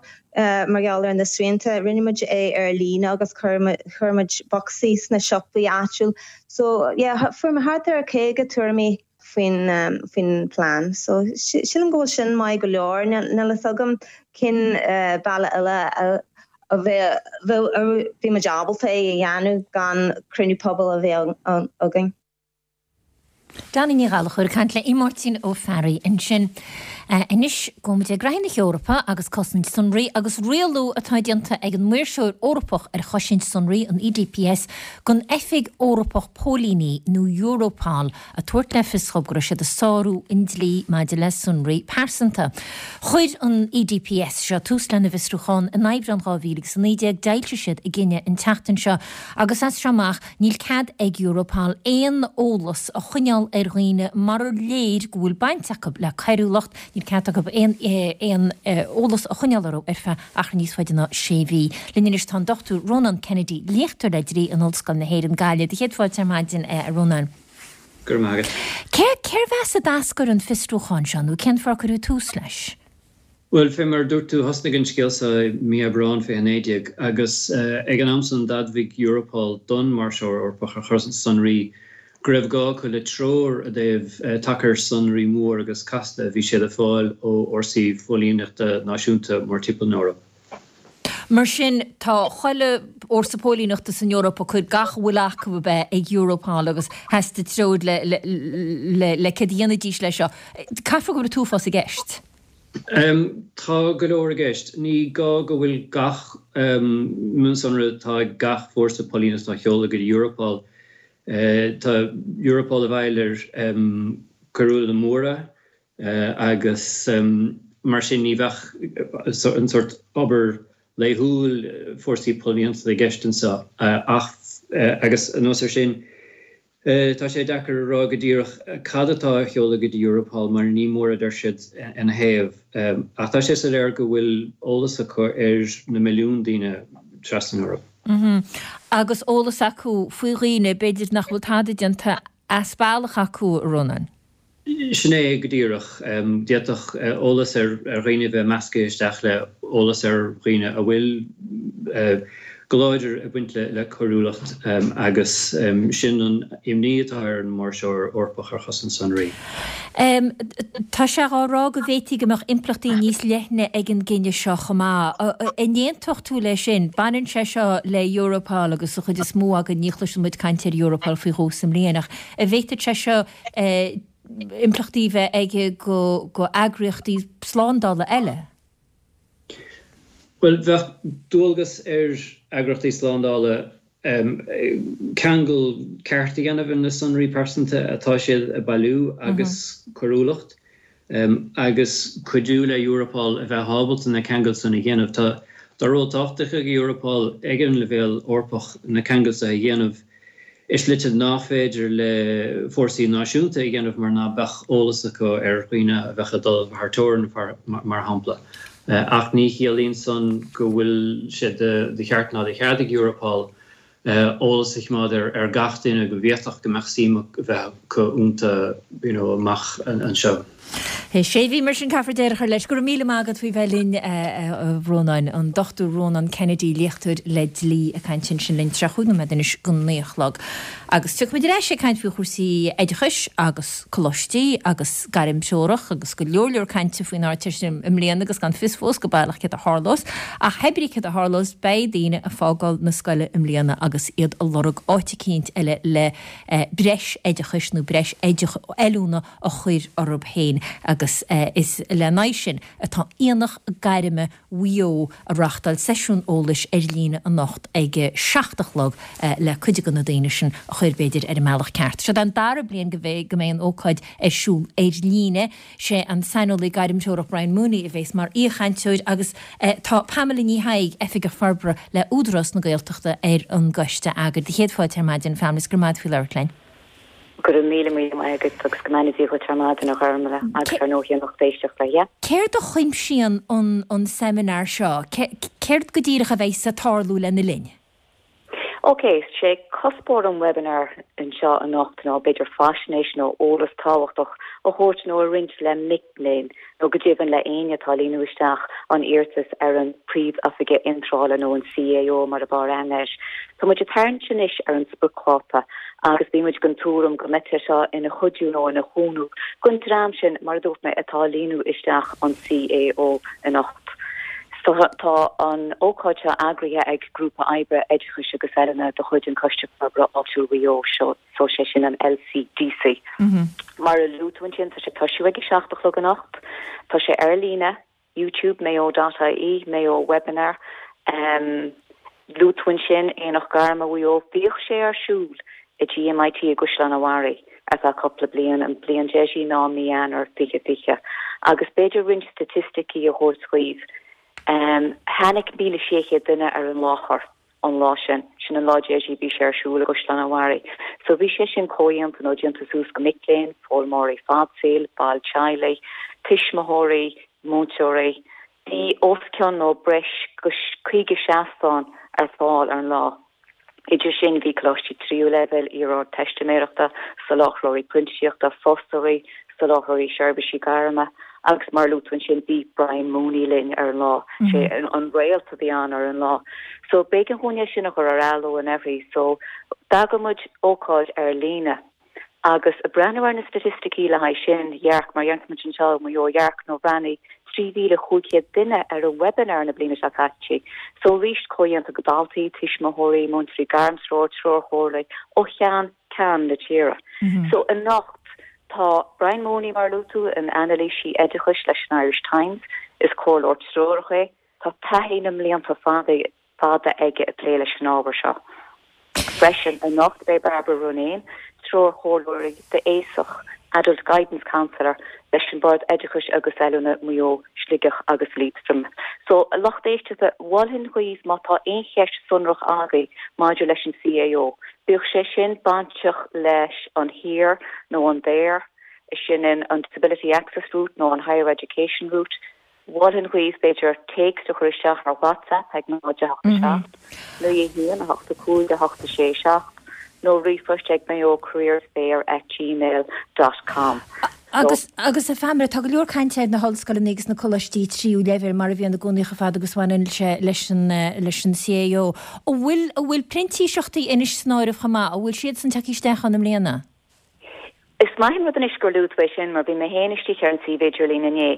mar gheall ar na srianta, rinne muid é ar líne agus chuir muid bocsaí sna siopaí áitiúil. So, yeah, fuair muid thart ar 50 tuairimí. faoin faoin plean. So sílim go bhfuil sin maith go leor. Níl fhios agam cén bealach eile a bheadh bhí muid ábalta é a dhéanamh gan cruinniú pobail a bheith againn. Donna Ní Ghallchóir ag caint le Máirtín Ó Fearraigh ansin. Anois gabhfaidh muid ag graithí na hEorpa agus cosaint sonraí agus rialú atá déanta ag an Maoirseoir Eorpach ar Chosaint Sonraí, an EDPS, don Oifig Eorpach Póilíní, nó Europol, ag tabhairt le fios dhóibh go raibh siad ag sárú an dlí maidir le sonraí pearsanta. Chuir an EDPS seo tús lena bhfiosrúchán in Aibreán 2019, d'fhoilsigh siad a gcinneadh an tseachtain seo agus as seo amach níl cead ag Europol aon eolas a choinneáil ar dhaoine marar léir go bhfuil baint acu le coiriúlacht, níl cead acu aon aon eolas a choinneáil orthu ar feadh achar níos faide ná sé mhí. Linn anois tá an Dr Rónán Kennedy, léachtóir le dlí in Ollscoil na hÉireann, Gaillimh. Do chéad fáilte ar maidin, a Rónáin. Go raibh maith agat. Cé, cérbh as a d'eascair an fiosrúchán seo nó cén fáth ar cuireadh tús leis? Bhuel, fé mar a dúirt tú, thosnaigh an scéal seo i mí Aibreáin 2019 agus ag an am san d'admhaigh Europol don Maoirseoir Eorpach ar Chosaint Sonraí go raibh gá acu le treoir i dtaobh tacair sonraí mór agus casta a bhí siad ag fáil ó fhórsaí phóilíneachta náisiúnta mórtimpeall na hEorpa. Mar sin, tá chuile fhórsa póilíneachta san Eoraip ag cur gach a bhfuil acu ab ea ag Europol agus theastaigh treoir le le le céard a dhéanfaidís leis seo. Caithfear go bhfuil an t-uafás i gceist. Tá go leor i gceist. Ní gá go bhfuil gach mionsonra atá ag gach fórsa póilíneachta á sheoladh go dtí Europol. Tá Europol i bhfeighil ar coiriúlaithe móra agus mar sin ní bheadh an sórt obair laethúil fórsaí póilíneachta i gceist anseo ach agus anuas air sin Tá sé deacair a rá go díreach cad atá á sheoladh go dtí Europol mar ní mór a deir siad ina thaobh. Ach tá sé soiléir go bhfuil eolas acu ar na milliúin daoine trasna na hEorpa. Agus eolas acu faoi dhaoine, b'fhéidir, nach bhfuil tada déanta as bealach acu, a Rónáin. Sin é go díreach. D'fhéadfadh eolas ar dhaoine a bheith measctha isteach le eolas ar dhaoine a bhfuil go láidir ag baint le coiriúlacht agus sin an imní atá ar an Maoirseoir Eorpach ar Chosaint Sonraí. Tá sé á rá go bhféadfaí go mbeadh impleachtaí níos leithne ag an gcinneadh seo chomh maith. An aontódh tú leis sin? Baineann sé seo le Europol agus an chuid is mó againn ní chloiseann muid caint ar Europol faoi dhó sa mbliain ach an bhféadfadh sé seo impleachtaí a bheith aige go eagraíochtaí slándála eile? Bhuel, bheadh dualgas ar eagraíochtaí slándála ceangal ceart a dhéanamh ar na sonraí pearsanta atá siad a bailiú agus coiriúlacht agus cuidiú le Europol a bheith ábalta na ceangail san a dhéanamh. Tá tá ról tábhachtach ag Europol ag an leibhéal Eorpach na ceangail seo a dhéanamh i slite nach féidir le fórsaí náisiúnta a dhéanamh mar ná beadh eolas acu ar dhaoine a bheadh ag dul thar teorainn, mar shampla. Ach ní chiallaíonn san go bhfuil sé de cheart ná de chead ag Europol eolas a choimeád ar gach duine go bhféadfadh go mbeadh suim a bheith acu iontu you know amach anseo. Sé mhí mar sin caithfear deireadh a chur leis. Go raibh míle maith agat faoi bheith linn a Rónáin. An Dr Rónán Kennedy, léachtóir le dlí ag caint ansin linn 35 nóiméad anois go 9 a chlog. Agus tiocfaimid ar ais ag caint faoi chúrsaí oideachais agus coláistí agus gairmthreorach agus go leor leor cainte faoin Ardteist i mbliana agus gan fios fós go baileach céard a tharlós. Ach hébrí céard a tharlós beidh daoine ag fágáil na scoile i mbliana agus iad ag lorg áit eicínt eile le breis oideachais nó breis oiliúna a chur orthu féin agus is lena aghaidh sin atá Aonach Gairme Mhaigh Eo ag reáchtáil seisiún eolais ar líne anocht ag a 7 a chlog le cuid de na daoine sin a chur b'fhéidir ar an mbealach ceart. Seo an dara bliain go mbeidh an ócáid ar siúl ar líne. Sé an saineolaí gairmthreorach Brian Mooney a bhéas mar aoichainteoir agus tá Pamela Ní Thaidhg, Oifigeach Forbartha le Údarás na Gaeltachta ar an gcoiste eagair. Do chéad fáilte ar maidin, Pamela, is go raibh maith agat faoi labhairt linn. Go raibh míle míle maith agat agus go mbeannaí Dia dhuit ar maidin, a Ghormfhlaith, agus ar ndóigh an lucht éisteachta, yeah. Céard a chuimsíonn an seimineár seo? Céard go díreach a bheidh ag tarlú lena linn? Ok, sé cuspóir an webinar anseo anocht ná b'fhéidir faisnéis nó eolas tábhachtach a thabhairt nó a roinnt le mic léinn nó go deimhin le éinne atá ag líonadh isteach an iarratas ar an Príomh-Oifigeach Iontrála nó an CAO mar ab fhearr aithne air. Tá muid ag tarraingt anois ar an spriocdháta agus bhí muid den tuairim go mbeadh sé seo ina chuidiú nó ina chúnamh don dream sin, mar a dúirt mé, atá ag líonadh isteach an CAO anocht. Tá an ócáid seo eagraithe ag Grúpa Oibre Oideachais agus Oiliúna de chuid an Choiste Forbartha Áitiúil Mhaigh Eo, seo. So sé sin an LCDC. Mar a luaigh tú ansin, tá sé ag toisiú ag a 7 a chlog anocht. Tá sé ar líne, YouTube, mayo dot ie, Mayo Webinar. Luaigh tú ansin Aonach Gairme Mhaigh Eo. Bhíodh sé ar siúl i GMIT i gCaisleán an Bharraigh ar feadh cúpla bliain, an bliain deiridh ná mí Eanáir 2020. Agus b'fhéidir roinnt staitisticí a thabhairt dhaoibh. Tháinig 1,600 duine ar an láthair. an lá sin. Sin an lá deiridh a bhí sé ar siúl i gCaisleán an Bharraigh. So bhí sé sin comhdhéanta nó déanta suas go mic léinn, foghlaimeoirí fadsaoil, baill teaghlaigh, tuismitheoirí, múinteoirí. Bhí os cionn nó breis go 50 seastán ar fáil ar an lá. Idir sin bhí coláistí tríú leibhéal, iar-ardteistiméireachta, soláthróirí printíseachta, fostóirí, soláthróirí seirbhísí gairme agus mar a luaigh tú ansin bhí Brian Mooney linn ar an lá, sé an réalt a bhí ann ar an lá. So b'éigean dhúinn é sin a chur ar athló anuraidh so d'eagraigh muid ócáid ar líne agus ag breathnú ar na staitisticí le haghaidh sin, dhearc, mar a deireann muid anseo i Maigh Eo, dhearc nó bhreathnaigh 3,500 duine ar an webinar na bliana seo caite. So arís comhdhéanta go daltaí, tuismitheoirí, múinteoirí gairmthreoir, treoirchomhairligh ó cheann ceann na tíre. So anocht. Tá Brian Mooney, mar a luaigh tú, ina anailísí oideachais leis an Irish Times. Is comhairleoir treorach é. Tá taithí na mblianta fada fada aige ag plé leis an ábhar seo. Freisin, anocht beidh Barbara Ronayne, treoirchomhairleoir d'aosach, Adult Guidance Counsellor, leis an Bord Oideachais agus Oiliúna, Maigh Eo, Sligeach agus Liatroim. So, a lucht éisteachta, mholfainn dhaoibh má tá aon cheist sonrach agaibh maidir leis an CAO, bíodh sé sin bainteach leis an HEAR nó an DAER, sin an Disability Access Route nó an Higher Education Route, Mholfainn dhaoibh, b'fhéidir, téacs a chur isteach ar WhatsApp ag 0 8 7 9 1 8 5 8 6 7 nó ríomhphost ag mayocareersfair at gmail dot com. Agus, agus a Phamela, tá go leor cainte ar na hollscoileanna agus na coláistí tríú leibhéal mar a bhíonn i gcónaí chomh fada agus a bhaineann sé leis an, leis an CAO. An bhfuil, an bhfuil printíseachtaí anois san áireamh chomh maith? An bhfuil siadsan tagtha isteach ann i mbliana? Is maith an rud anois gur luaigh tú é sin mar bhí mé féin istigh ar an suíomh idirlín inné.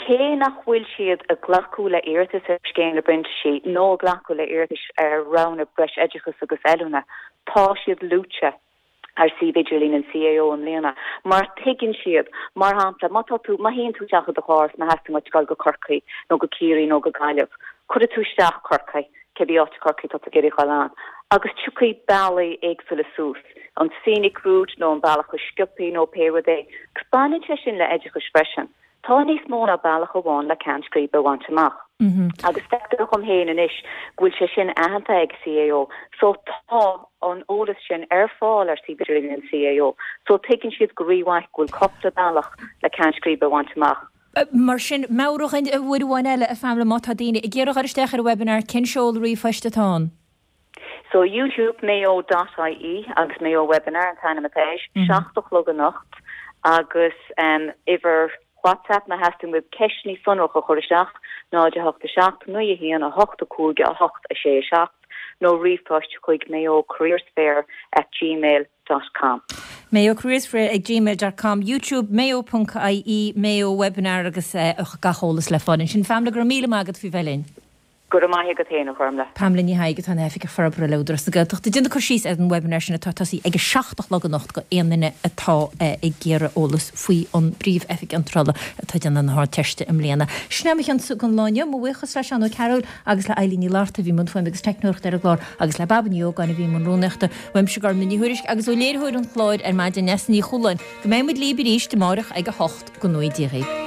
Cé nach bhfuil siad ag glacadh le iarratais ar Scéim na bPrintísí nó ag glacadh le iarratais ar roghanna breis oideachais agus oiliúna, tá siad luaite ar suíomh idirlín an CAO i mbliana mar tuigeann siad, mar shampla, má tá tú, má théann tú isteach i do charr is má theastaíonn uait dul go Corcaigh nó go Ciarraí nó go Gaillimh, cuirfidh tú isteach Corcaigh, cibé áit i Corcaigh atá tú ag iarraidh dhul ann, agus tiocfaidh bealaí éagsúla suas, an scenic route nó an bealach is sciobthaí nó pé rud é. Agus baineann sé sin le oideachais freisin. Tá níos mó ná bealach amháin le ceann scríbe a bhaint amach. Agus feictear dhom féin anois go bhfuil sé sin aitheanta ag CAO. So tá an eolas sin ar fáil ar suíomh idirlín an CAO. So tuigeann siad go rímhaith go bhfuil cúpla bealach le ceann scríbe a bhaint amach. Mar sin, meabhraigh dhúinn uair amháin eile, a Phamela, má tá daoine ag iarraidh a dhul isteach ar an webinar, cén seoladh ríomhphoist atá ann? So, youtube mayo dot ie agus Mayo Webinar an t-ainm atá air, 7 a chlog anocht agus uimhir WhatsApp má theastaíonn uaibh ceisteanna sonracha a chur isteach, 0 8 7 9 1 8 5 8 6 7 nó ríomhphost chuig mayocareersfair at gmail dot com. mayocareersfair ag gmail dot com, youtube mayo ponc ie, Mayo Webinar agus gach eolas le fáil ansin. Pamela, go raibh míle maith agat faoi bheith linn. Go raibh maith agat féin, a Ghormlaith. Pamela Ní Thaidhg atá ina hOifigeach Forbartha le Údarás na Gaeltachta. Ag déanamh cur síos ar an webinar sin atá ag tosaí ag a 7 a chlog anocht go aon duine atá ag iarraidh eolas faoi an bPríomh-Oifig Iontrála atá ag déanamh na hArdteiste i mbliana. Sin é mo chionsa don lá inniu. Mo bhuíochas le Seán Ó Cearúil agus le Eilín Ní Fhlatharta a bhí i mbun fuaime agus teicneoireachta ar an gclár agus le Baba Ní Ógáin a bhí i mbun rúnaíochta. Uaimse Gormlaith Ní Thuairisg agus ó léiritheoir an chláir ar maidin, Neasa Ní Chualáin, go mbeidh muid libh arís amáireach ag a 8 go ngnóthaí Dia dhaoibh.